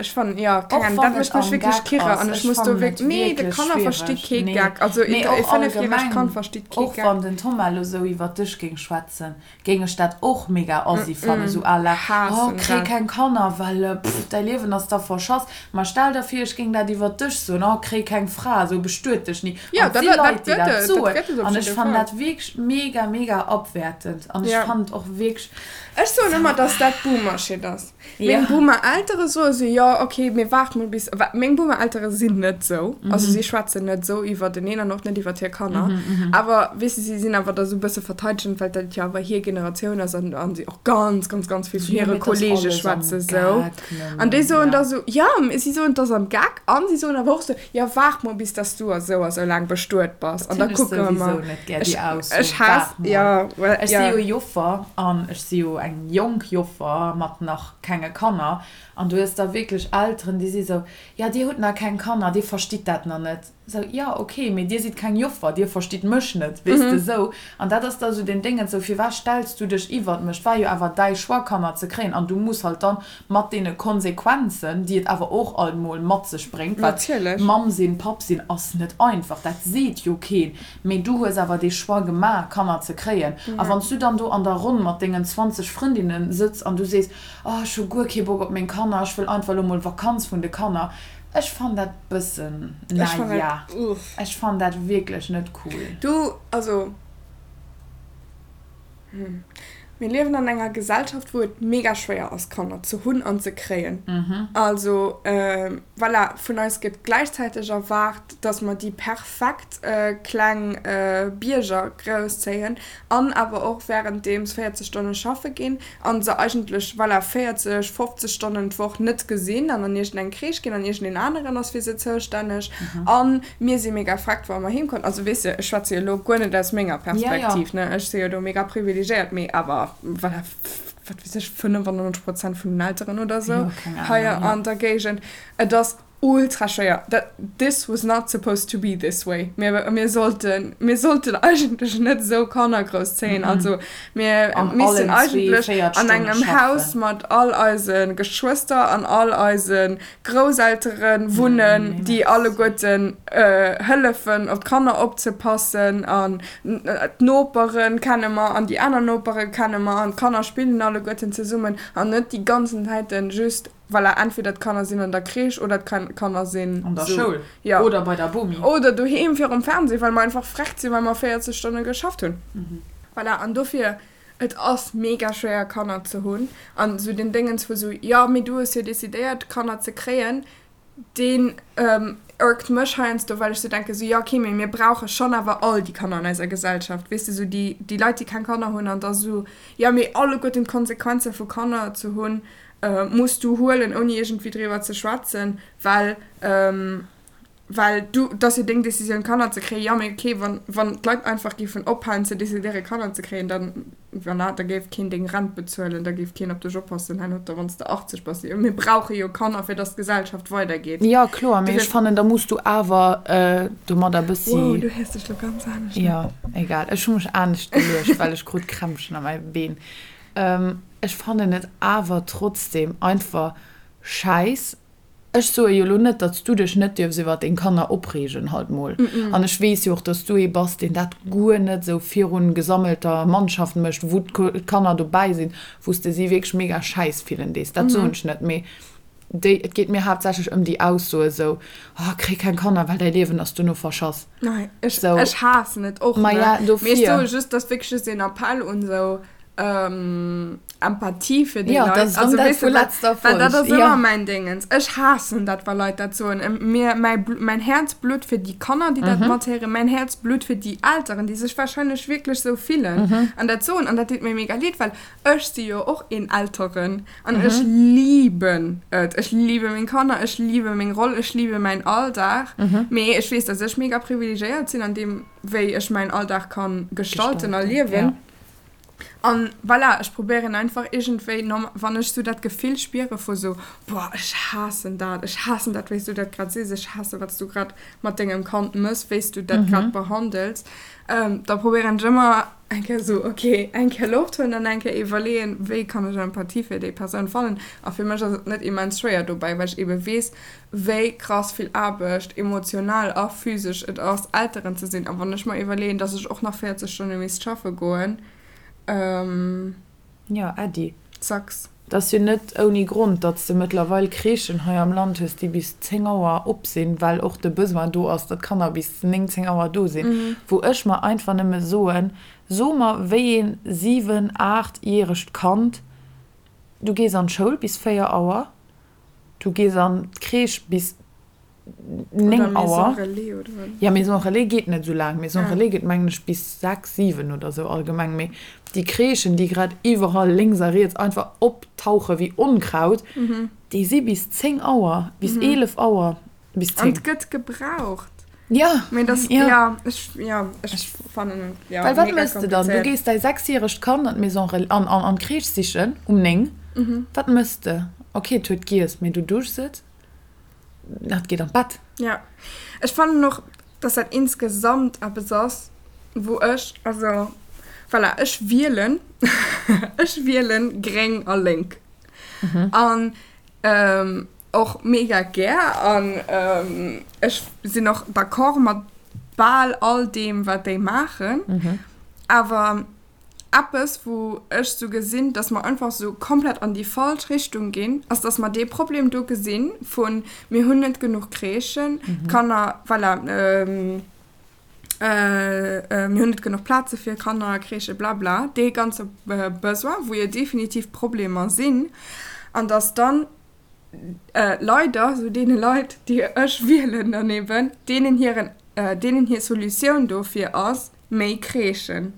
ech fannen, jo, keng Ahnung, dat mécht mech wierklech kirre an ech muss do wierklech, nee, de Kanner versti kee Geck, also ee fënnefjäregt Kand versteet kee Geck. Och wann den Thomas elo sou iwwer dech géing schwätzen, géing ech dat och mega assi fannen, sou à la, oh kréi keng Kanner, well pff däi Liewen ass da verschass. Ma stell der vir ech géing dat iwwer dech soen, oh kréi keng Fra, sou bestuet dech ni. An et si Leit déi dat soen an ech fannen dat wierklech mega mega abwertend an ech fannen et och wierklech. Ech soen ëmmer dass dat Boomer-Shit ass. Meng Boomer-Eltere soe sou. sou, jo ok, mee waart mol bis, well meng Boomer-Eltere sinn net sou, also si schwätzen net sou iwwerteneen an och net iwwert hir Kanner, awer weess de, si sinn awer da sou e bësse verteidegend, well dat jo awer hir Generatioun ass an an si och ganz, ganz, ganz vill vun hire Kollege schwätze sou. An déi soen da sou, jo, si soen, et ass am Geck an si soen awer och sou, jo waart mol bis dass du a sou a sou laang bestuet bass an da kucke mer. Ech haass, jo, well, jo. Ech si jo Joffer an ech si jo eng jonk Joffer mat nach kenge Kanner an du hues da wierklech Elteren, déi si sou, jo dir hutt nach keng Kanner, dir verstitt dat nach net. Sou, jo ok, mee dir sidd keng Joffer, dir verstitt mech net, weess de sou. An dat ass da sou den Déngens, sou firwat stells du dech iwwert mech? Et war jo awer däi Choix Kanner ze kréien an du muss halt dann mat deene Konsequenzen, déi et awer och alt mol mat sech bréngt, well Mamm sinn, Papp sinn ass net einfach, dat seet jo keen, Mee du hues awer dee Choix gemaach, Kanner ze kréien. A wann s du dann do an der Ronn mat dengen 20 Frëndinne sëtz an du sees, Oh, ech hu guer kee Bock op meng Kanner, ech wëll einfach elo mol Vakanz vun de Kanner. Ech fann dat bëssen, na ja, ech fann dat wierklech net cool. Du, also. Mir liewen an enger Gesellschaft, wou et mega schwéier ass, Kanner ze hunn an ze kréien. Also, voilà, vun eis gëtt gläichzäiteg erwaart, dass mer déi perfekt kleng Bierger grousszéien an awer och wärenddeems 40 Stonne schaffe ginn a se eigentlech, voilà, 40, 50 Stonnen d'Woch net gesinn an an iergendeng Crèche ginn an iergendeen aneren ass fir se zoustänneg. An Mir si mega freckt, wa mer heem kommen. Also weess de, ech schwätze jo elo guer net aus menger Perspektiv, ne, ech si jo do mega privilegéiert, mee awer voilà, wat weess ech, 95 Prozent vun den Elteren oder sou hei an der Géigend, et ass ultra schwéier. Dat, this was not supposed to be this way. Mir, mir sollten, mir sollten eigentlech net esou Kanner grousszéien. Also mir missten eigentlech an engem Haus mat all eise Geschwëster an all eise Grousseltere wunnen, déi alleguerten hëllefen op d'Kanner opzepassen an d'Nopere kenne mer an déi aner Nopere kenne mer an d'Kanner spillen alleguerten zesummen an net déi ganzen Zäiten just, voilà, entweder d'Kanner sinn an der Crèche oder d'Kanner sinn an der Schoul oder bei der Bomi oder doheem virum Fernseh, well mer einfach vreckt sinn, well mer 40 Stonne geschafft hunn. Voilà, an dofir Et ass mega schwéier Kanner ze hunn an esou den Déngens vu sou, jo mee du hues jo decidéiert Kanner ze kréien, deen iergt mech heiansdo, well ech sou denken sou, jo okay mee mir brauche schonn awer all déi Kanner an eiser Gesellschaft, weess de, sou déi déi Leit déi keng Kanner hunn an da sou, jo mee alleguerten d'Konsequenze vu Kanner ze hunn muss du huelen ouni iergendwéi driwwer ze schwätzen, well. Well du, et ass jo deng Decisioun Kanner ze kréien. Jo, mee okay, wann, wann d'Leit einfach géifen ophalen ze decidéieren Kanner ze kréien, dann, voilà, da géif keen deng Rent bezuelen, da géif keen op dech oppassen herno, da wann s de 80 bass. Mir brauche jo Kanner, fir dass d'Gesellschaft weidergeet. Jo, kloer, mee ech fannen, da muss du awer domadder bëssi. Wow, du héiers dech lo ganz anescht un. Jo, egal, ech hu mech anescht geluecht, well ech krut Krämpchen a mäi Been. Ech fannen et awer trotzdem einfach schäiss, Ech soe jo lo net, datt s du dech net dierfs iwwer deng Kanner opreegen, halt mol. An ech weess jo och, datt s du ee bass, deen dat guer net esou virun gesammelter Mannschaft mécht, wou d'Kanner dobäi sinn, wou s de si wierklech mega schäiss fillen dees. Dat soen ech net. Mee déi, et geet mir haaptsächlech ëm déi Aussoe esou, Oh, kréi keng Kanner, well däi Liewen ass duerno verschass. Nei, ech, ech haassen et och, ne? Mee ech soe just, dat ass wierklech just een Appell un esou, Empathie fir déi Leit. Also, weess de, well dat ass ëmmer mäin Déngens. Ech haassen dat, wa Leit dat soen. Mir, mäi, mäin Häerz blutt fir déi Kanner, déi dat mathéieren. Mäin Häerz blutt fir déi Elteren, déi sech warscheinlech wierklech esou fillen an dat soen. An dat deet mir mega leed, well ech si jo och een Elteren an ech liben et. Ech libe meng Kanner, ech libe meng Roll, ech libe mäin Alldag. Mee ech weess, dass ech mega privilegéiert sinn an deem, wéi ech mäin Alldag ka gestalten a liewen. An voilà, ech probéieren einfach iergendwéi, wann ech sou dat Gefill spiere vu sou, boah, ech haassen dat, ech haassen dat, wéi s du dat grad sees, ech haasse wat s du grad mat dengem Kand mëss, wéi s du dat grad behandels, da probéieren ech ëmmer eng Kéier sou, ok, eng Kéier Loft huelen an eng Kéier iwwerleeën, wéi kann ech Empathie fir déi Persoun fannen. A fir mech ass et net immens schwéier dobäi, well ech ebe weess, wéi krass vill Aarbecht, emotional a physesch, et ass, Elteren ze sinn. A wann ech mer iwwerleeën, dass ech och nach 40 Stonne misst schaffe goen, Jo, Äddi. Sucks. Et ass jo net ouni Grond, datt s de mëttlerweil Crèchen hei am Land hues, déi bis 10 Auer op sinn, well och de Besoin do ass, datt d'Kanner bis 9, 10 Auer do sinn. Wou ech mer einfach nëmme soen, So mer, wéi een 7-, 8 järegt Kand, du gees an d'Schoul bis 4 Auer. Du gees an d'Crèche bis 9 Auer. Ja, Maison Relais geet net esou laang. Maison Relais geet, mengen ech, bis 6, 7 oder esou allgemeng. Mee déi Crèchen, déi grad iwwerall lénks a riets einfach optauche wéi Onkraut, déi si bis 10 Auer, bis 11 Auer, bis 10. An et gëtt gebraucht. Ja, Mee das, ja. ja, ech, ja, ech fannen et, ja, Well wat mega méchs de dann? Du komplizéiert. gees däi sechsjäregt Kand an d'Maison Relais, an, an, an d'Crèche sichen um 9. Wat méchs de? Ok, et huet giess, mee du duschs et, et geet an d'Bett. Ja, ech fannen och, dass dat insgesamt eppes ass, wou ech, also voilà, ech wielen, ech wielen gréng a lénk. An och mega gär an ech sinn och d'accord mat bal all deem wat déi maachen, awer eppes wou ech sou gesinn, dass mer einfach sou komplett an déi falsch Richtung ginn, ass dass mer dee Problem do gesinn vun mir hunn net genuch Crèchen, d'Kanner, voilà, mir hunn net genuch Plaze fir Kanner, Crèchen, blabla, dee ganze Besoin, wou jo definitiv Problemer sinn, an dass dann leider sou deene Leit, déi ech wielen dann eben, deenen hiren, deenen hir Solutioun dofir ass, méi Crèchen.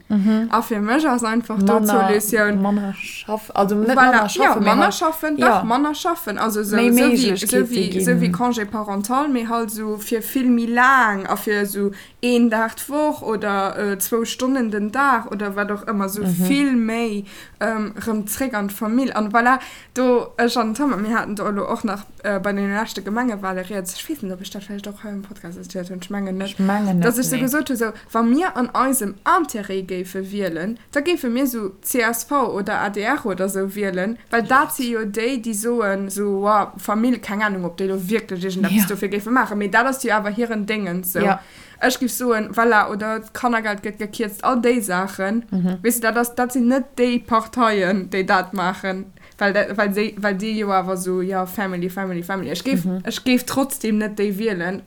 A fir mech ass einfach do d'Solutioun. Manner schaffen, also net manner schaffen, mee manner schaffen, dach, manner schaffen, also sou, méi Méiglechkeete ginn. Sou wéi Congé parental, mee halt sou fir vill méi laang a fir sou een Dag d'Woch oder zwou Stonnen den Dag oder wat och ëmmer, sou vill méi rëm zréck an d'Famill. An voilà, Do, ech an den Thomas, mir haten do elo och nach bei deene leschte Gemengewale rieds, ech weess net, ob ech dat vläicht och hei am Podcast erzielt hunn, ech mengen net, Ech mengen net, dass ech sou nee. gesot hunn, sou, wa mir an eisem Intérêt géife wielen, da géife mir sou csv oder adr oder sou wielen, well dat si jo déi, déi soen, sou, wa Famill, keng Ahnung, ob déi elo wierklech iergendeppes Ja. dofir géife maachen, mee dat ass jo awer hiren Déngens, sou. Ja. Ech géif soen, voilà, oder d'Kannergeld gëtt gekierzt, all déi Saachen, weess de, dat ass, dat sinn net déi Parteien, déi dat maachen, well dat, well déi, well déi jo awer esou, jo, Family, Family, Family. Ech géif, ech géif trotzdem net déi wielen,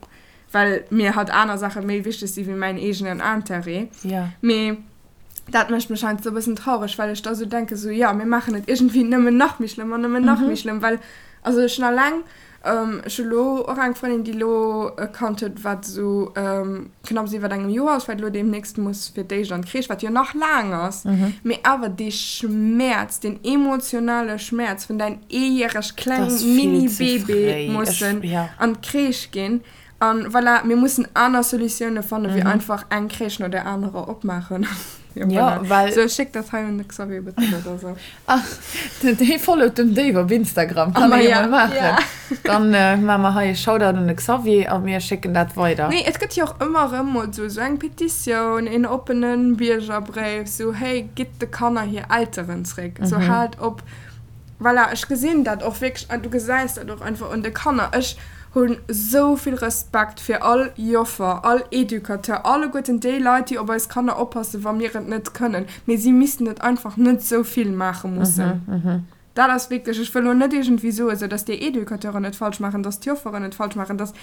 well mir halt aner Saache méi wichteg si wéi mäin eegenen Intérêt. Mee dat mécht mech heiansdo e bëssen traureg, well ech da sou denken, sou, jo, mir maachen et iergendwéi nëmmen nach méi schlëmm an nëmmen nach méi schlëmm, well, also ech hunn alleng, ech hu lo och eng Frëndin, déi lo e Kand huet, wat esou knapps iwwer engem Joer ass, wat lo deemnächst muss fir d'éischt an d'Crèche, wat jo nach laang ass, mee awer dee Schmäerz, deen emotionale Schmäerz vun däin eejäreg kleng Mini-Bébé mussen an d'Crèche ginn, An voilà, mir mussen aner Solutioune fannen, wéi einfach eng Crèche no där anerer opmaachen. Jo, voilà. Well. Sou, schéck dat hei un de Xavier Bettel oder sou. Ah, dee followt dem Dave op Instagram. Kann Ah, ee jo ja, mol maachen. ja. Dann maache mer hei e Shoutout un de Xavier a mir schécken dat weider. Nee, et gëtt jo och ëmmer erëm mol sou, sou eng Petitioun, een oppene Biergerbréif, sou, hey, gitt de Kanner hir Elteren zréck, sou, haalt op. Voilà, ech gesinn dat och wierklech an du gesäis dat och einfach un de Kanner. Ech hunn esou vill Respekt fir all Joffer, all Educateur, alleguerten déi Leit, déi op eis Kanner oppassen, wa mir et net kënnen. Mee si missten et einfach net esou vill maache mussen. Dat ass wierklech, ech wëll elo net iergendwéi soen, esou datt déi Educateuren et falsch maachen, datt d'Jofferen et falsch maachen, datt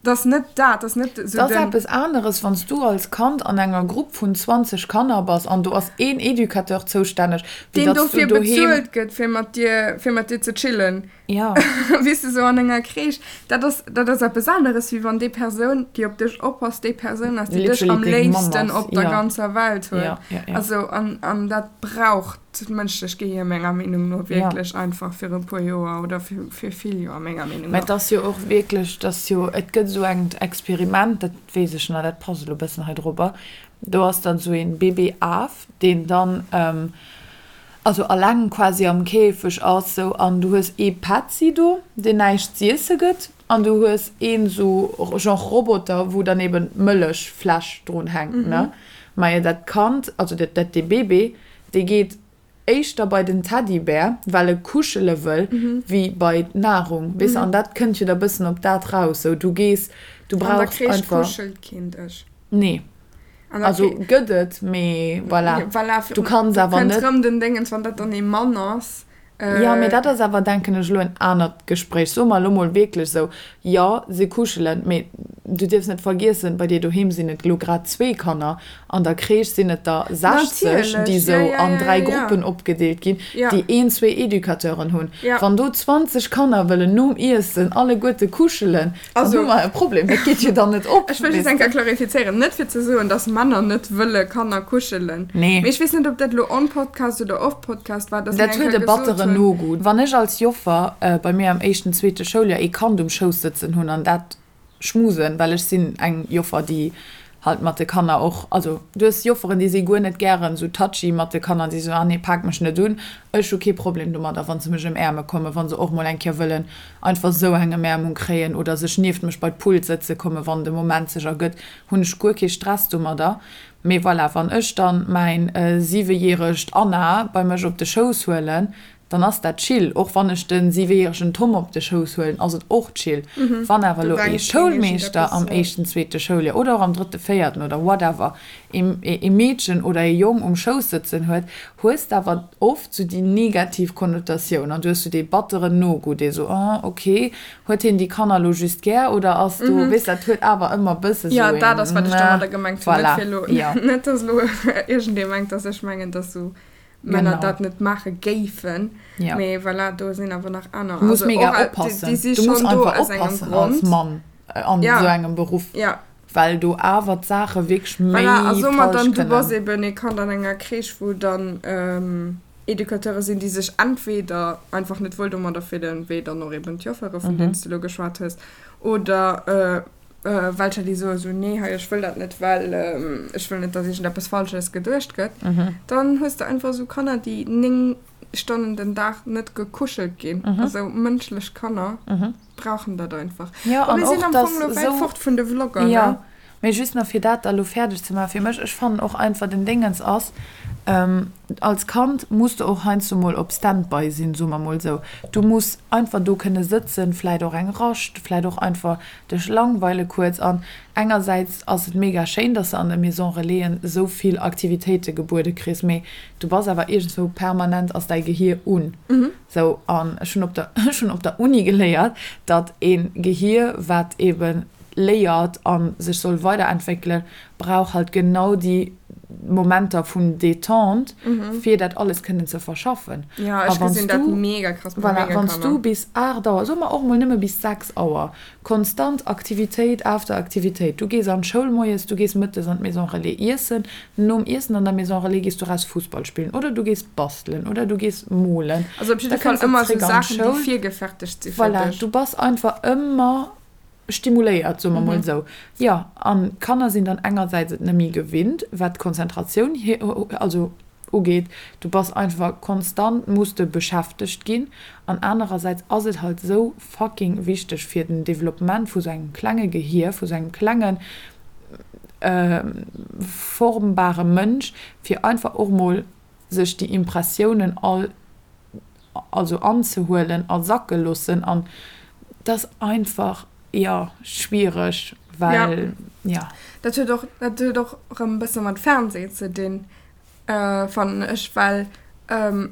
Dat ass net dat, dat ass net esou den. Dat ass eppes aneres, wann s du als Kand an enger Grupp vun 20 Kanner bass an do ass een Educateur zoustänneg, wéi datt s du doheem. Deen dofir bezuelt gëtt, fir mat dir, fir mat dir ze chillen. Jo. Weess de, sou an enger Crèche. Dat ass, dat ass eppes aneres, wéi wann déi Persoun, déi op dech oppasst, déi Persoun ass, déi dech am léifsten op der ganzer Welt huet. Jo, jo, jo. Also, an, an dat brauch. D'mënschlecht Gehier menger Meenung no wierklech einfach fir e puer Joer oder fir vill Joer menger Meenung no. Mä et ass jo och wierklech, dass jo, et gëtt esou engt Experiment, dat weess ech nach, dat passt elo e bëssen hei drobber, do ass dann esou een Baby-Af, deen dann also alleng quasi am Käfeg ass sou an du hues ee Petzi do, deen näischt z'iesse gëtt an du hues een esou genre Roboter, wou dann eben d'Mëllechfläsch drun hänkt, ne. Majo dat Kand, also dat, dat dee Bébé, Dee geet éischter bei den Teddybär, well e kuschele wëll, wéi bei d'Nahrung, weess de. An dat kënnt jo da bëssen op dat raus, sou du gees, du An der brauchs Crèche einfach. kuschelt keen dech. Nee. An der Also Crè-. gëtt et, mee voilà, Voilà, du kanns do awer kënnt net. rëm den Déngens, wann dat dann ee Mann ass. Jo, mee dat ass awer, denken ech, elo en anert Gespréich. Soe mer elo mol wierklech esou, jo, se kuschelen, mee. Du dierfs net vergiessen, bei dir doheem sinn et elo grad zwee Kanner, an der Crèche sinn et der 60, déi esou an dräi Gruppen opgedeelt ginn, déi een, zwee Educateuren hunn. Wann do 20 Kanner wëllen nom Iessen alleguerte kuschelen, dann hu mer e Problem. Dat geet jo dann net op. Ech wëll just eng Kéier klarifizéieren, net fir ze soen, dass Männer net wëlle Kanner kuschelen, mee ech weess net, ob dat elo on Podcast oder off Podcast war, dass mir Dat eng huet e Kéier gesot batteren hunn. Nogoût. Wann ech als Joffer bei mir am éischten, zweete Schouljoer ee Kand um Schouss sëtzen hunn an dat schmusen, well ech sinn eng Joffer, déi halt mat de Kanner och, also du hues Jofferen, déi si guer net gären esou touchy mat de Kanner, déi soen, ah nee, pak mech net un. Ech hu kee Problem domadder, wa se mech ëmäerme kommen, wa se och mol eng Kéier wëllen einfach esou eng Emäermung kréien oder sech nieft mech bei d'Pult sëtze kommen, wann de Moment sech ergëtt, hunn ech guer kee Stress domadder. Mee voilà, wann ech dann mäin siwejäregt Anna bei mech op de Schouss huelen, dann ass dat chill. Och wann ech de siwejäregen Tom op de Schouss huelen, ass et och chill. Wann awer Do elo ee denkt keen Schoulmeeschter iergendeppes, am jo. éischten, zweete Schouljoer oder och am drëtte, véierten oder whatever ee Meedchen oder ee Jong um Schouss sëtzen huet, hues de awer oft sou déi negativ Konnotatioun an du hues sou dee batteren Nogoût, dee sou, oh ok, huet hien déi Kanner elo just gär oder ass do, weess, dat huet awer ëmmer e bësse Jo, sou dat een, ass wat ech domadder gemengt hunn, net voilà, fir elo, jo. net dass elo iergendee mengt, dass ech mengen, dass sou Männer Genau. dat net maache géifen. Ja. Mee voilà, do sinn awer nach aner. Du muss Also mega och, déi, oppassen. déi si Du muss schonn do einfach aus engem oppassen als Grond. Mann an Ja. esou engem Beruff, Ja. well do awer d'Saache wierklech méi Voilà, a soe mer falsch dann, du bass kënnen. eben ee Kand an enger Crèche, wou dann Educateure sinn, déi sech entweder einfach net wuel domadder fillen, wéi dann och eben d'Joffere, vun deenen s de elo geschwat hues, oder welcher déi soe sou, nee hei ech wëll dat net, well ech wëll net, datt iergendeppes Falsches geduecht gëtt, dann hues de einfach esou Kanner, déi 9 Stonnen den Dag net gekuschelt ginn. Also mënschlech Kanner brauchen dat einfach. Jo, Bon, an mir sinn och am datt Fong elo wäit esou, fort vun de Vlogger, ne? jo, mee just nach fir dat da elo fäerdeg ze maachen fir mech, ech fannen och einfach den Déngens ass, Als Kand muss de och heiansdo mol op Standby sinn, soe mer mol esou. Du muss einfach do kënne sëtzen, vläit och eng Rascht, vläit och einfach dech langweile kuerz. An engersäits ass et mega schéin, dass de an de Maison Relaisen esou vill Aktivitéite gebuede kriss, mee du bass awer iergendswou permanent ass däi Gehier un. Sou, an ech hunn op der, ech hunn op der Uni geléiert, datt ee Gehier, wat eebe léiert a sech soll weiderentwéckelen, brauch halt genau déi Momenter vun Détente, fir dat alles kënnen ze verschaffen. Ja, ech gesinn dat mega krass bei Voilà, menge wann s du Kanner. bis 8 Auer, soe mer och mol nëmme bis 6 Auer, konstant Aktivitéit after Aktivitéit, du gees an d'Schoul moies, du gees mëttes an d'Maison Relais iessen, nom Iessen an der Maison Relais gees du raus Fussball spillen oder du gees bastelen oder du gees molen, Also op da jidde Fall kënns de ëmmer esou zréck an Saachen, déi d'Schoul. virgefertegt si fir Voilà, dech. du bass einfach ëmmer Stimuléiert, soe mer mol esou. Jo, an d'Kanner sinn dann engersäits et net méi gewinnt, wat d'Konzentratioun also ugeet, du bass einfach konstant, muss de beschäftegt ginn. An anerersäits ass et halt esou fucking wichteg fir den Developpement vu sou engem klenge Gehier, vu sou engem klengen formbare Mënsch, fir einfach och mol sech déi Impressiounen all also anzehuelen a sacke loossen an et ass einfach, jo, schwiereg, well, jo. Dat huet och, dat huet och erëm e bësse mat Fernseh ze dinn, fannen ech, well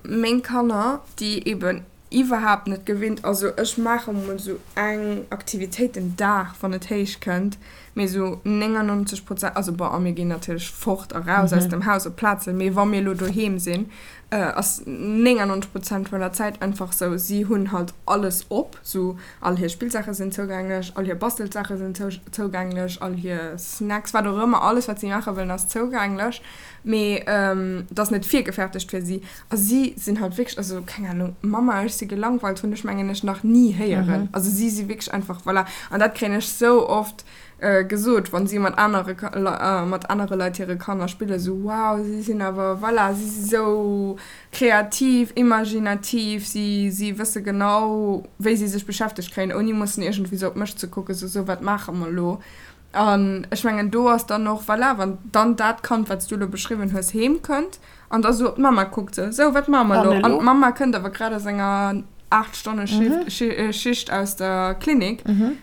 meng Kanner, déi eben iwwerhaapt net gewinnt, also ech maache mol esou eng Aktivitéit den Dag, wann et héich kënnt, mee esou 99 Prozent, also bon, a mir ginn natierlech fort a raus aus dem Haus op Plazen, mee wa mir elo doheem sinn, ass 99 Prozent vun der Zäit einfach sou, si hunn halt alles op, sou all hir Spillsaache sinn zougänglech, all hir Bastelsaache sinn zougänglech, all hir Snacks, wat och ëmmer, alles wat si maache wëllen ass zougänglech, mee et ass net virgefertegt fir si a si sinn halt wierklech, also keng Ahnung, Mama ech si gelangweilt hunn ech mengen ech nach ni héieren, also si si wierklech einfach, voilà, an dat kréien ech sou oft gesot, wann si mat anere mat anere Leit hire Kanner spillen, sou wow, si sinn awer, voilà, si si sou kreativ, imaginativ, si si wësse genau, wéi si sech beschäftegt kréien, ouni mussen iergendwéi sou op mech ze kucken, sou sou wat maache mer elo? An ech mengen do ass dann och, voilà, wann dann dat Kand, wat s du elo beschriwwen hues, heem kënnt An da sou op d'Mamma kuckt, sou, Sou, wat maache mer elo? An d'Mamma kënnt awer grad aus enger 8 Stonne Schicht aus der Klinik.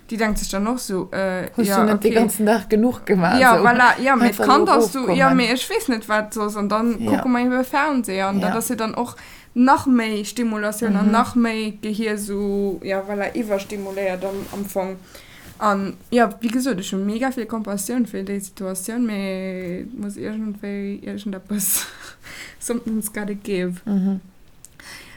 Déi denkt sech dann och sou, äh, Hues du net dee ganzen Dag genuch gemaach? Ja, voilà, ja, mee d'Kand ass sou, jo, mee ech weess net, wat soss. An dann kucke mer ebe Fernseh. An dat ass jo dann och nach méi Stimulatioun an nach méi d'Gehier sou, ja, voilà, iwwerstimuléiert am Fong. An jo, wéi gesot, ech hu mega vill Compassioun fir déi Situatioun, mee et muss iergendwéi iergendeppes, something's gotta give.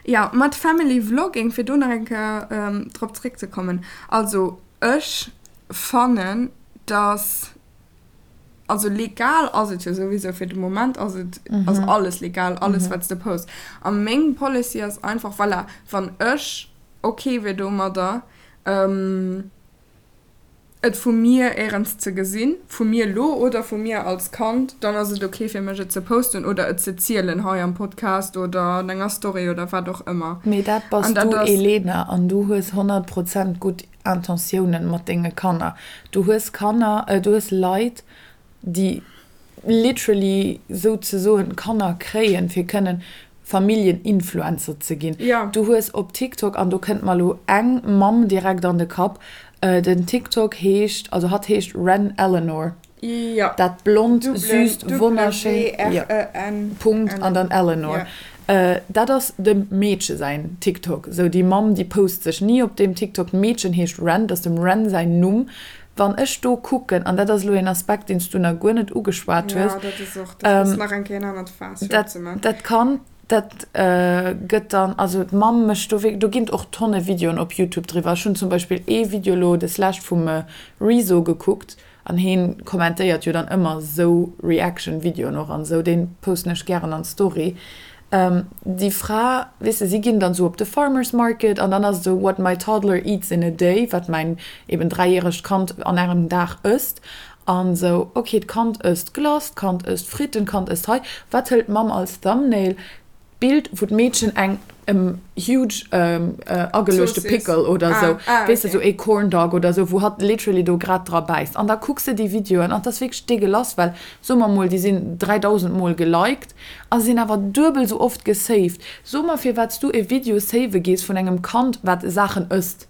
Jo, mat Family Vlogging, fir do nach eng Kéier drop zréckzekommen, also ech fannen, dass, also legal ass et jo souwisou, fir de Moment ass et, ass alles legal, alles wat s de posts. A meng Policy ass einfach, voilà, wann ech ok wier domadder, et vu mir éierens ze gesinn, vu mir elo oder vu mir als Kand, dann ass et ok fir mech et ze posten oder et ze zielen hei am Podcast oder an enger Story oder wat och ëmmer. Mee dat bass du Elena an du hues 100 Prozent gutt Intentiounen mat denge Kanner. Du hues Kanner, du hues Leit déi literally souzesoen Kanner kréien, fir kënnen Familljen-Influencer ze ginn. Du hues op TikTok, an do kënnt mer elo eng Mamm direkt an de Kapp, den TikTok heescht, also hatt heescht Wren Eleanor, dat blond, süsst, wonnerschéin, jo, Punkt an dann Eleanor. Dat ass dem Meedche säin TikTok. Sou déi Mamm, déi post sech ni op deem TikTok. D'Meedchen heescht Wren, dat ass dem Wren säin Numm. Wann ech do kucken, an dat ass elo een Aspekt, deen s du nach guer net ugeschwat hues, Jo, dat ass och, dat ass nach eng Kéier en anert Faass fir opzemaachen. Dat Kand, dat gëtt dann, also d'Mamm mécht do wierklech, do ginn et och Tonne Videoen op Youtube driwwer. Ech hunn zum Beispill ee Video elo deslescht vum Rezo gekuckt, an heen kommentéiert jo dann ëmmer esou Reaction-Videoen och an esou, dee posten ech gären an d'Story. Déi Fra, weess de, si ginn dann esou op de Farmers Market an dann ass et esou what my toddler eats in a day, wat mäin eben dräijäregt Kand an engem Dag ësst. An esou, ok, d'Kand ësst Glace, d'Kand ësst Fritten, d'Kand ësst hei. Wat hëlt d'Mamm als Thumbnail? D'Bild wou d'Meedchen eng huge ageluechte Pickle oder esou, weess de, esou ee Corn Dog oder esou, wou hatt literally do grad dra bäisst. An da kucks de déi Videoen an 't ass wierklech degueulass, well soe mer mol, déi sinn 3000 mol geliked a sinn awer duebel esou oft gesaved. So mer firwat s du e Video save gees vun engem Kand wat Saachen ësst.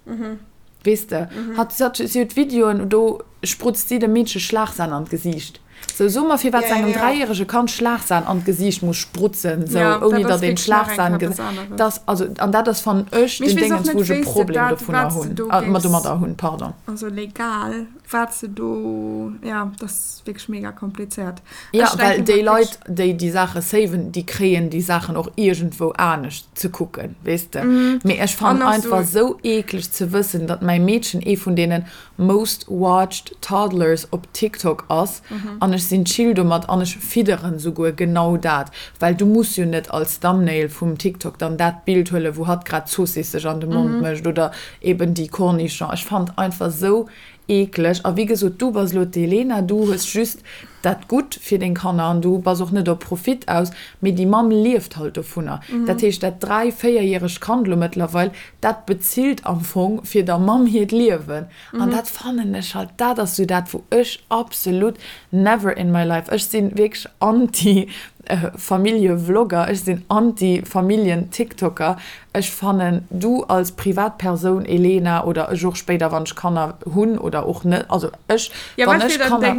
Weess de, hatt, si huet Videoen, do sprutzt si dem Meedche Schlagsan an d'Gesiicht. Sou, so mer firwat se engem dräijärege Kand Schlagsan an d'Gesiicht muss sprutzen, sou, ouni datt een d'Schlagsan gesait. Dass, also, an dat ass, fannen ech, den Déngens, wou ech e Problem dovunner hunn, domadder hunn, pardon. Also legal, wat se do, jo, dat ass wierklech mega komplizéiert. Jo, well déi Leit, déi déi Saache saven, déi kréien déi Saachen och iergendwou anescht ze kucken, weess de. Mee ech fannen einfach esou eekleg ze wëssen, datt mäi Meedchen ee vun deenen most watched toddlers op TikTok ass an ech sinn chill domat an ech fidderen souguer genau dat, well du muss jo net als Thumbnail vum TikTok dann dat Bild huelen, wou hatt grad Zoossiss sech an de Mond mécht oder eben déi Cornichon. Ech fannen einfach esou eekleg. A wéi gesot, du bass elo d'Elena, du hues just dat Gutt fir deng Kanner an du bass och net op Profit aus, mee déi Mamm lieft halt dovunner. Dat heescht, dat dräi-, véierjäregt Kand elo mëttlerweil, dat bezilt am Fong fir der Mamm hiert Liewen. An dat fannen ech halt, dat ass sou dat, wou ech absolut never in my life, ech si wierklech anti Familljevlogger, ech sinn anti Familljen-Tiktoker. Ech fannen, du als Privatpersoun, Elena, oder ech och spéider, wann ech Kanner hunn oder och net, also ech, wann ech Kanner,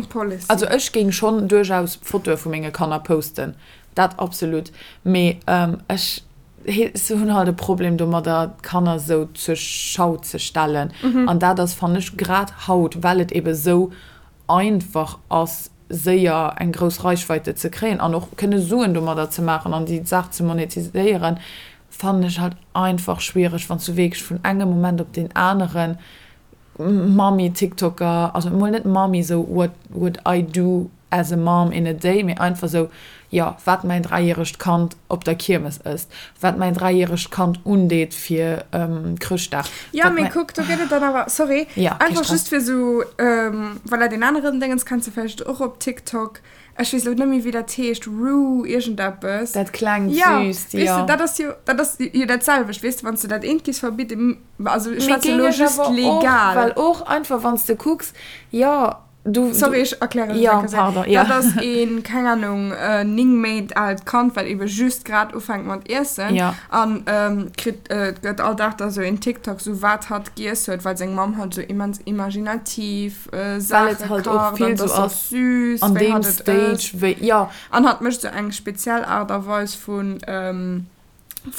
also ech géing schonn duerchaus Fotoe vu menge Kanner posten, dat absolut, mee ech hunn halt e Problem domadder, d'Kanner esou zur Schau ze stellen. An dat ass, fannen ech, grad haut, well et ebe sou einfach ass, séier eng grouss Reichweite ze kréien an och kënne Suen domadder ze maachen an déi Saach ze monetiséieren, fannen ech halt einfach schwiereg, wann s du wierklech vun engem Moment op deen aneren Mami-Tiktoker, also emol net Mami, sou what would I do as a mom in a day, mee einfach sou, jo, wat mäin dräijäregt Kand op der Kiermes ësst, wat mäin dräijäregt Kand undeet fir Chrëschtdag. Jo, mee kuck, do gëtt et dann awer, sorry, einfach just fir sou, voilà, deen aneren Déngens kenns de vläicht och op TikTok, ech weess elo net méi, wéi dat heescht, Rue iergendeppes. Dat klengt süsst, jo. Weess de, dat ass jo, dat ass jo dat selwecht, weess de, wann s de dat eent giffs verbidden, also ech schwätze elo just legal. Well och einfach, wann s de kucks, jo, Du, Sorry, ech erklären et ja, pardon, ja. Dat ass een, keng Ahnung, 9 Méint aalt Kand, wat ebe just grad ufänkt mat iessen. Ja. An ähm, kritt, äh, gëtt all Dag da sou een TikTok, sou wat hatt giess huet, well seng Mamm halt sou immens imaginativ äh, Saache kacht. Well et halt och vill sou ass süß, an deem Stage, wéi, ja. An hatt mécht sou eng speziell Aart a Weis vun, ähm.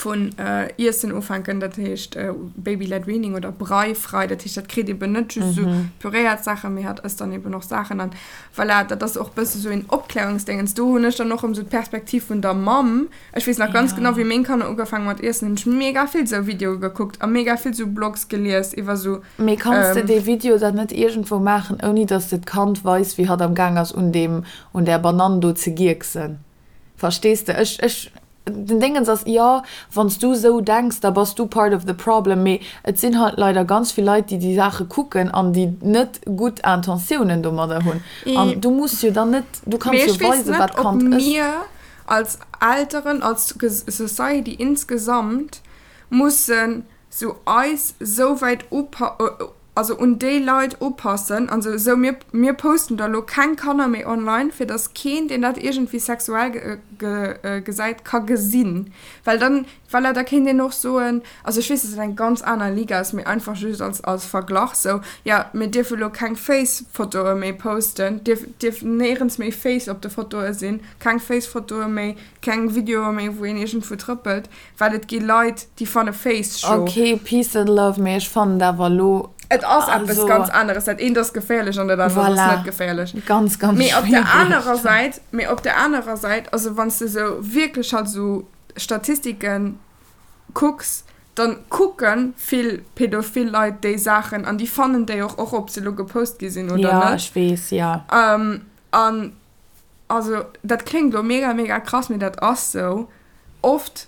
Vun Iessen ufänken, dat heescht Baby-led Weaning oder Brei-frei, dat heescht dat kritt eben net just esou püréiert Saachen, mee hat ësst dann eben och Saachen an voilà, dat ass och bësse sou een Opklärungsdéngens. Do hunn ech dann och erëm sou d'Perspektiv vun der Mamm. Ech weess nach ganz genau, wéi meng Kanner ugefaangen mat iessen, hunn ech mega vill sou Videoe gekuckt a mega vill sou Blogs gelies iwwer sou. Mee kanns de dee Video dann net iergendwou maachen, ouni dass de d'Kand weis, wéi hatt am Gaang ass un deem, un där Banann do ze gierksen? Verstees de? Ech, ech, den Déngens ass, jo, wann s du esou denks, da bass du part of the problem, mee et sinn halt leider ganz vill Leit, déi déi Saache kucken an déi net gutt Intentiounen domadder hunn. An du muss jo dann net, du kanns Mee jo ech weess weisen, net, wat ob d'Kand ësst. mir als Elteren, als Society insgesamt mussen sou eis sou wäit upa also un déi Leit upassen an sou, sou mir mir posten da lo keng Kanner méi online, fir dass keen deen dat iergendwéi sexuell gesäit ka gesinn, well dann, voilà, da kéint een och soen, also ech weess dass dat eng ganz aner Liga ass, mee einfach just als als Verglach sou, jo mir dierfe lo keng Face-Fotoe méi posten, dierf dierf néierens méi Face op de Fotoe sinn, keng Face-Fotoe méi, keng Videoe méi wou een iergendwou trëppelt. Well et gi Leit, déi fanne Face scho. Ok, peace and love, mee ech fannen et awer elo. Et ass eppes ganz aneres. Dat eent ass geféierlech an dat anert ass net geféierlech. Voilà, ganz, ganz Mee op der schwiereg. anerer Säit, mee op der anerer Säit, also wann s de sou wierklech halt sou Statistiken kucks, dann kucke vill pädophil Leit déi Saachen an déi fannen déi och, och ob se elo gepost gi sinn oder Ja, net. ech weess, ja. An also dat kléngt elo mega, mega krass, mee dat ass sou. Oft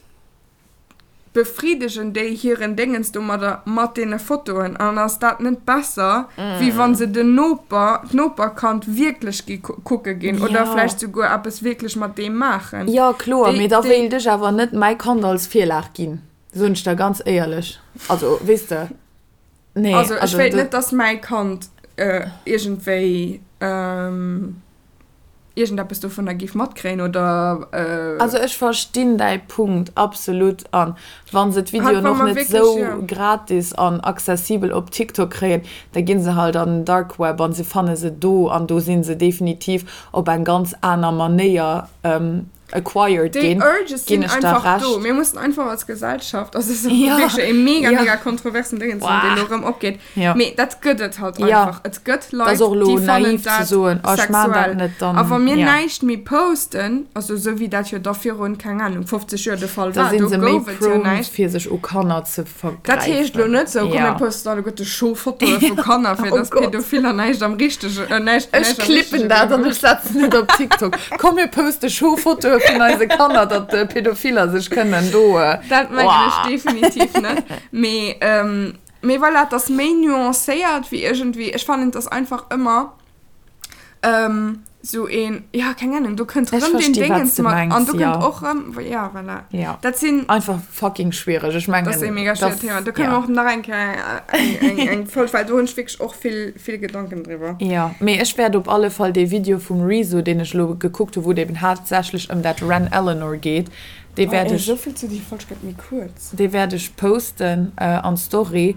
befriddegen déi hiren Déngens domadder mat deene Fotoen an ass dat net besser, wéi wa se den Noper, d'Noperkand wierklech gi kucke ginn oder vläicht souguer eppes wierklech mat deem maachen? Jo, kloer, mee da wéilt ech awer net mäi Kand als Virlag ginn, soen ech der ganz éierlech. Also, weess de, nee. Also ech wéilt net, dass mäi Kand iergendwéi. Iergendeppes dovunner géif matkréien oder. Also ech verstinn däi Punkt absolut an wann se d'Videoen och net sou gratis an accessibel op TikTok kréien, da ginn se halt an den Dark Web an se fanne se do an do sinn se definitiv op eng ganz aner Manéier acquired Déi ginn, Urges ginn sinn ech der einfach do. Recht. Mir mussen einfach als Gesellschaft, also es ass Ja, wierklech e mega, ja. mega kontroversen Déngens, deen elo erëm opgeet, Ja. mee dat gëtt et halt Ja. einfach. Et gëtt Dat Leit, ass och elo déi fannen naiv ze dat soen, oh ech maan dat sexuell. net, dann, A wa mir ja. näischt méi posten, also esou wéi dat jo da virun, keng Ahnung, 50 Joer de Fall Da war, sinn do se méi gouf et jo prone näischt. fir sech u Kanner ze Dat heescht elo vergräifen. net sou, komm mir Ja. posten alleguerte Show-Fotoe vu Kanner, fir Oh dass Gott. Pädophiller näischt am richtege, äh, näischt, Ech näischt am klippen richtege dat an Liewen ech setzen et op TikTok. Komm mir poste Show-Fotoe vun eise Kanner, datt Pädophiller sech kënnen do, Dat mengen ech Oah. definitiv net. Mee, mee voilà, et ass méi nuancéiert wéi iergendwéi, ech fannen, et ass einfach ëmmer Sou een, ja, keng Ahnung, do kënnt Ech rëm deen versti wat Déngens s de mat an mengs, do ja. kënnt och rëm, ja, voilà. Ja. Dat sinn. Einfach fucking schwiereg. Ech mengen, Dat ass e mega schwierigen Thema. Do kënne ja. mer och nach eng Kéier eng, eng, eng Folg, well do hunn ech wierklech och vill, vill Gedanken driwwer. Jo, mee ech wäert op alle Fall dee Video vum Rezo, deen ech elo gekuckt hu wou et eben haaptsächlech ëm dat Wren Eleanor geet, dee Oh, wäert ey, ech, esou vill zu déi Folg gëtt méi kuerz. dee wäert ech posten an d'Story.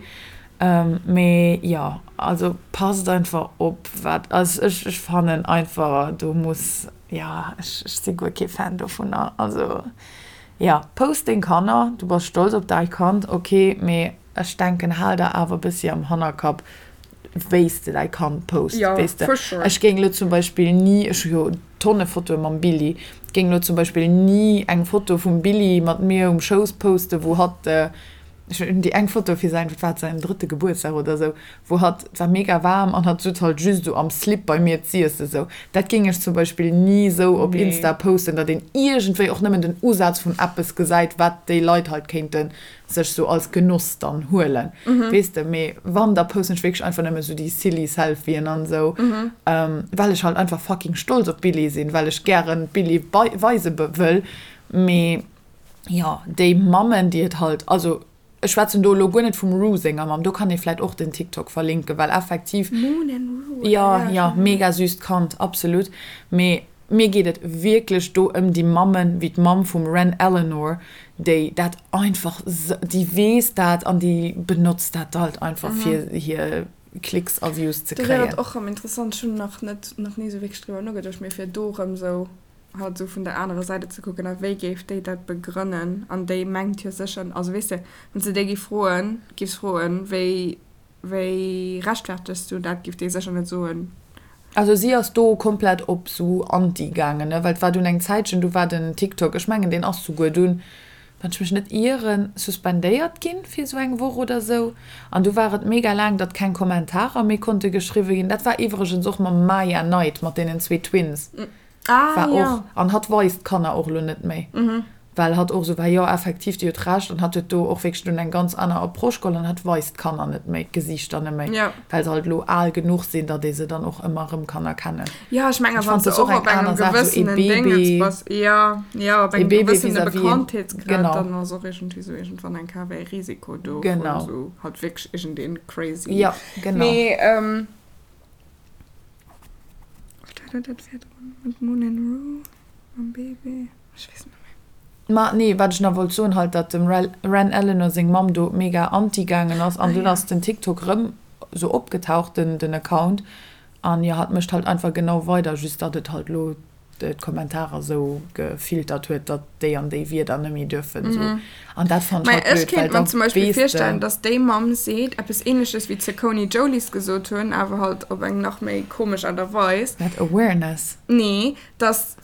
Mee jo, also passt einfach op wat, also ech ech fannen einfach do muss, jo ech ech si guer kee Fan dovunner. Also jo, post deng Kanner, du bass stolz op däi Kand, ok, mee ech denken hal der awer e bëssi am Hannerkapp wéi s de däi Kand post, Jo, weess de. for sure. Ech géing elo zum Beispill ni, ech hu jo Tonne Fotoe mam Billy, géing elo zum Beispill ni eng Foto vum Billy mat mir um Schouss posten, wou hatt, Ech hunn déi eng Foto fir säin, wat war et, säin drëtte Gebuertsdag oder sou, wou hatt, et war mega waarm an hatt sutz halt just esou am Slip bei mir z'iessen sou. Dat géing ech zum Beispill ni sou op Nee. Insta posten, datt een iergendwéi och nëmmen den Usaz vun eppes gesäit, wat déi Leit halt kéinte sech sou als Genoss dann huelen, weess de. Mee wann, da posten ech wierklech einfach nëmme sou déi silly Selfien an sou, well ech halt einfach fucking stolz op d'Billie sinn, well ech gären d'Billie weise wëll. Mee Jo, déi Mammen, déi et halt, also ech schwätzen do elo guer net vum Rue senger Mamm, do kann ee vläit och den TikTok verlinken, well effektiv, Moon and Rue, jo, ja, jo, mega süsst Kand, absolut, mee mir geet et wierklech do ëm déi Mammen, wéi d'Mamm vum Wren Eleanor, déi dat einfach, déi weess dat an déi benotzt dat halt einfach fir hir Klicks a Views ze Do wär kréien. et och rëm interessant, ech hunn nach net, nach ni esou wierklech driwwer nogeduecht, mee fir do rëm esou. halt esou vun der anerer Säit et ze kucken a wéi géif déi dat begrënnen an déi mengt jo sécher, also weess de, wann s de déi géif froen, géifs froen, wéi wéi rechtfertegs du dat, géif déi sécher net soen. Also si ass do komplett op sou anti gaangen, ne, well et war dunn eng Zäitchen, du war den TikTok, ech mengen deen ass souguer dunn, wann ech mech net ieren, suspendéiert ginn fir sou eng Woch oder sou an du war et mega laang, datt keng Kommentarer méi konnte geschriwwe ginn. Dat war iwwregens och mam Maya Knight, mat deenen zwee Twins. Ah, war ja. och, an hatt weist d'Kanner och elo net méi, well hatt och esou war, jo effektiv, déi huet Recht, an hatt huet do och wierklech dunn eng ganz aner Approche geholl an hatt weist d'Kanner net méi, d'Gesiichter net méi, Ja. well se halt elo al genuch sinn, datt ee se dann och ëmmer erëm kann erkennen. Ja, ech mengen, Ech wann fand s de das och och eng op engem aner Saach, esou ee gewëssenen Déngens Baby, bass, ja, ja, op ee engem Baby gewëssene vis-à-vis een, Bekanntheetsgrad, genau. dann ass och iergendwéi esou iergendwann eng Kéier e Risiko do vun Genau. esou halt wierklech iergendeen crazy. Ja, genau. Mee, ähm. Wat war dat virdrun mat Moon and Rue mam Baby? Ech weess et net méi. Ma nee, wat ech nach wollt soen, halt datt dem Wren Eleanor seng Mamm do mega anti gaangen ass an dunn ass den TikTok rëm sou opgetaucht, den den Account, an jo hatt mécht halt einfach genau weider, just datt et halt lo d'Kommentarer sou gefiltert huet, datt déi an déi Wierder net méi duerfen sou. An dat fannen Mä ech halt ech blöd, well kéint mer da zum Beispill weess de. virstellen, datt déi Mamm seet eppes Ähnleches wéi d'Cecconi Jolies gesot hunn, awer halt op eng nach méi komesch Aart a Weis. Wat, Awareness? Nee, datt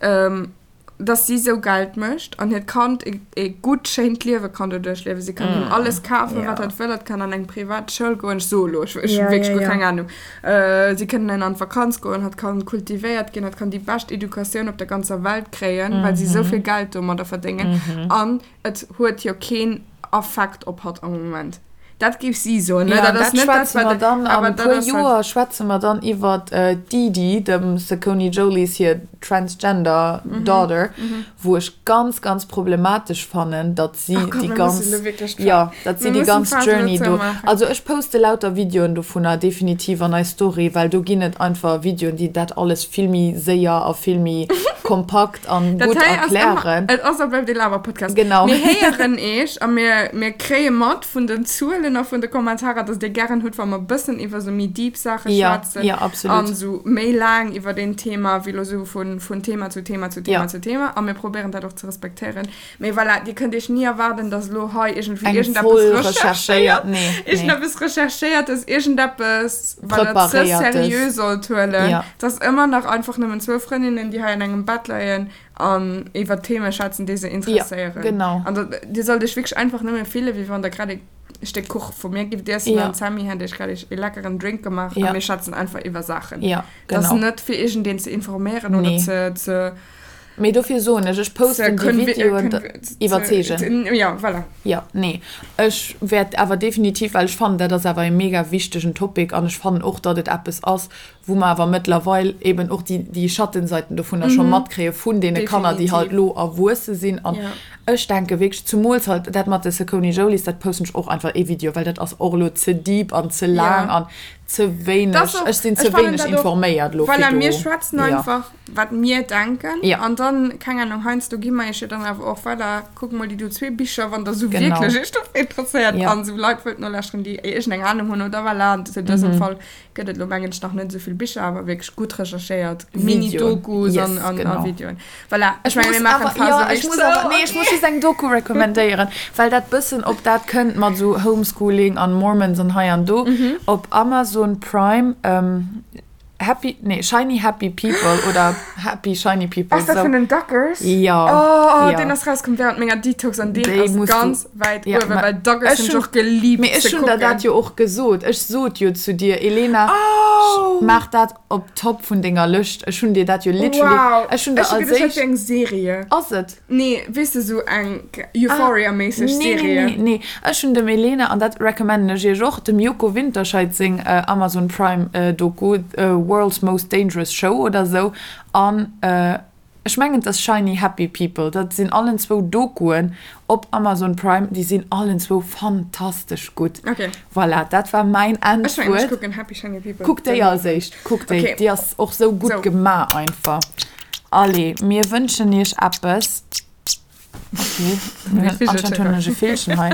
dass si sou Geld mécht an hiert Kand e gutt, schéint Liewe kann doduerch liewen. Si kann him alles kafen, wat hatt wëll. Hatt kann an eng privat Schoul goen. Ech soe lo, ech hu wierklech guer keng Anung. Si kënnen an d'Vakanz goen, hatt kann kultivéiert ginn, hatt kann déi bescht Educatioun op der ganzer Welt kréien, well si sou vill Geld domadder verdéngen. An et huet jo keen Affekt op hatt am Moment. Dat géif si soen, ne? Ja, Dat ass dat net dat, schwätze mer wat. dann an Awer e dat puer ass halt. Joer schwätze mer dann iwwer d'Didi, dem Saccone Jolies hir transgender daughter, wou ech ganz, ganz problematesch fannen, datt si Oh Gott, déi mir ganz, mussen elo wierklech d'Fa jo, datt si mir déi mussen ganz d'Phas elo Journey do. zoumaachen. Also ech poste lauter Videoen dovunner definitiv an eis Story, well do ginn et einfach Videoen, déi dat alles vill méi séier a vill méi kompakt an Dat gutt hei ass ëmmer, erklären. et ass a bleift ee Laber-Podcast. Genau. Mir héieren eech a mir, mir kréie mat vun den Zuelen a vun de Kommentarer, dass dir gären hutt, wa mer e bëssen iwwer sou méi deep Saache Ja, schwätzen ja, absolut. an sou méi laang iwwer een Thema, wéi lo sou vun, vun Thema zu Thema zu Thema Ja. zu Thema. A mir probéieren dat och ze respektéieren. Mee voilà, dir kënnt iech ni erwaarden, dass elo hei iergendwéi Eng iergendeppes voll recherchéiert, recherchéiert, nee, nee. iergendeppes recherchéiertes, iergendeppes, wat der ze Preparéiertes. seriö sollt huelen. Ja. Et ass ëmmer nach einfach nëmmen zwou Frëndinnen, déi hei an engem Bett leien an iwwer Theme schwätzen, déi se Ja, interesséieren. genau. An da, dir sollt iech wierklech einfach nëmme fillen, wéi wann der grad e Stéck Kuch vu mir gift iessen Ja. an d'Sammy hätt iech grad e leckeren Drink gemaach a Ja. mir schwätzen einfach iwwer Saachen. Ja, Et ass genau. net fir iergendeen ze informéieren oder Nee. ze, ze Mee dofir soen ech, ech posten déi Videoen, iwwerzeegen. Ja, voilà. Jo, nee, ech wäert awer definitiv, well ech fannen, dat ass awer e mega wichtegen Topic an ech fannen och, datt et eppes ass, wou mer awer mëttlerweil eben och déi, déi Schattenseiten dovunner scho matkréie vun deene Kanner, déi halt elo erwuesse sinn. An ech denke wierklech, zumools halt dat mat de Saucony Jolies, dat posten ech och einfach ee Video, well dat ass och elo ze deep an ze laang an ze wéineg, ech sinn ze wéineg informéiert elo fir do. Voilà, mir schwätzen einfach. wat mir denken ja. an dann keng Ahnung heiansdo gi mer iech jo dann awer och voilà kuck mol déi do zwee Bicher wann der sou genau. wierklech iech dofir interesséiert ja. an sou Leit wëllt nolauschteren déi iergendeng Ahnung hunn oder voilà an zu dësem mhm. Fall gëtt et lo mengen ech nach net esou vill Bicher awer wierklech gutt recherchéiert Videoen. Mini-Dokus yes, an, an, genau. a Videoen voilà Ech ech menge muss mir maachen awer, d'Phase ja, ech wierklech muss zou awer, nee, ech muss just eng Doku recommendéieren, well dat bëssen op dat kënnt mat sou Homeschooling an Mormons an hei an do. Mhm. Op Amazon Prime, ähm, Happy, nee, Shiny Happy People oder Happy Shiny People. Ass dat so. vun den Duggars? Ja. Oh, ja. deen ass rauskomm während menger Detox an deen Déi ass musst ganz du, wäit ja, uewen, ma well Duggars ech hunn ech hunn, och geliebt mee ech ze hunn der dat kucken. jo och gesot. Ech sot jo zu dir, Elena, Oh! maach dat op Top vun denger Lëscht. Ech hunn dir dat jo literally, Wow! ech hunn der Ech hu als geduecht, dat éischt. wier eng Serie. Ass et? Nee, weess de, sou eng Euphoria-méisseg Nee, nee, Serie. nee, nee. Ech hunn dem Elena, an dat recommenden ech iech och, dem Joko Winterscheidt seng Amazon Prime Doku, World's Most Dangerous Show oder sou, an ech mengen et ass Shiny Happy People. Dat sinn allen zwou Dokuen op Amazon Prime, déi sinn allen zwou fantastesch gutt. Okay. Voilà, dat war mäin Ech mengen, ech Endwuert. kucken Happy Shiny People. Kuck déi als éischt, kuck déi, Okay. déi ass och sou gutt Sou. gemaach einfach. Allez, mir wënschen iech eppes. Okay, anscheinend hunn ech e Villchen hei.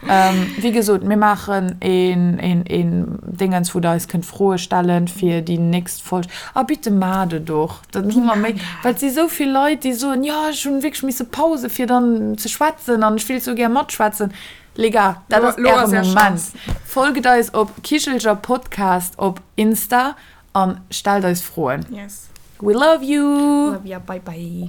Ähm, wéi gesot, mir maachen een, een, een Dingens, wou der eis kënnt Froe stellen fir déi nächst Folg. A bitte maacht et och, dann hu mer méi, well et si sou vill Leit, déi soen, jo, ech hunn wierklech misse Pause fir dann ze schwätzen an ech wéilt sou gär matschwätzen. Les gars, dat ass äre Moment. Folgt eis op Kichelcher Podcast op Insta an stellt eis Froen. Yes. We love you! Love ya, bye bye.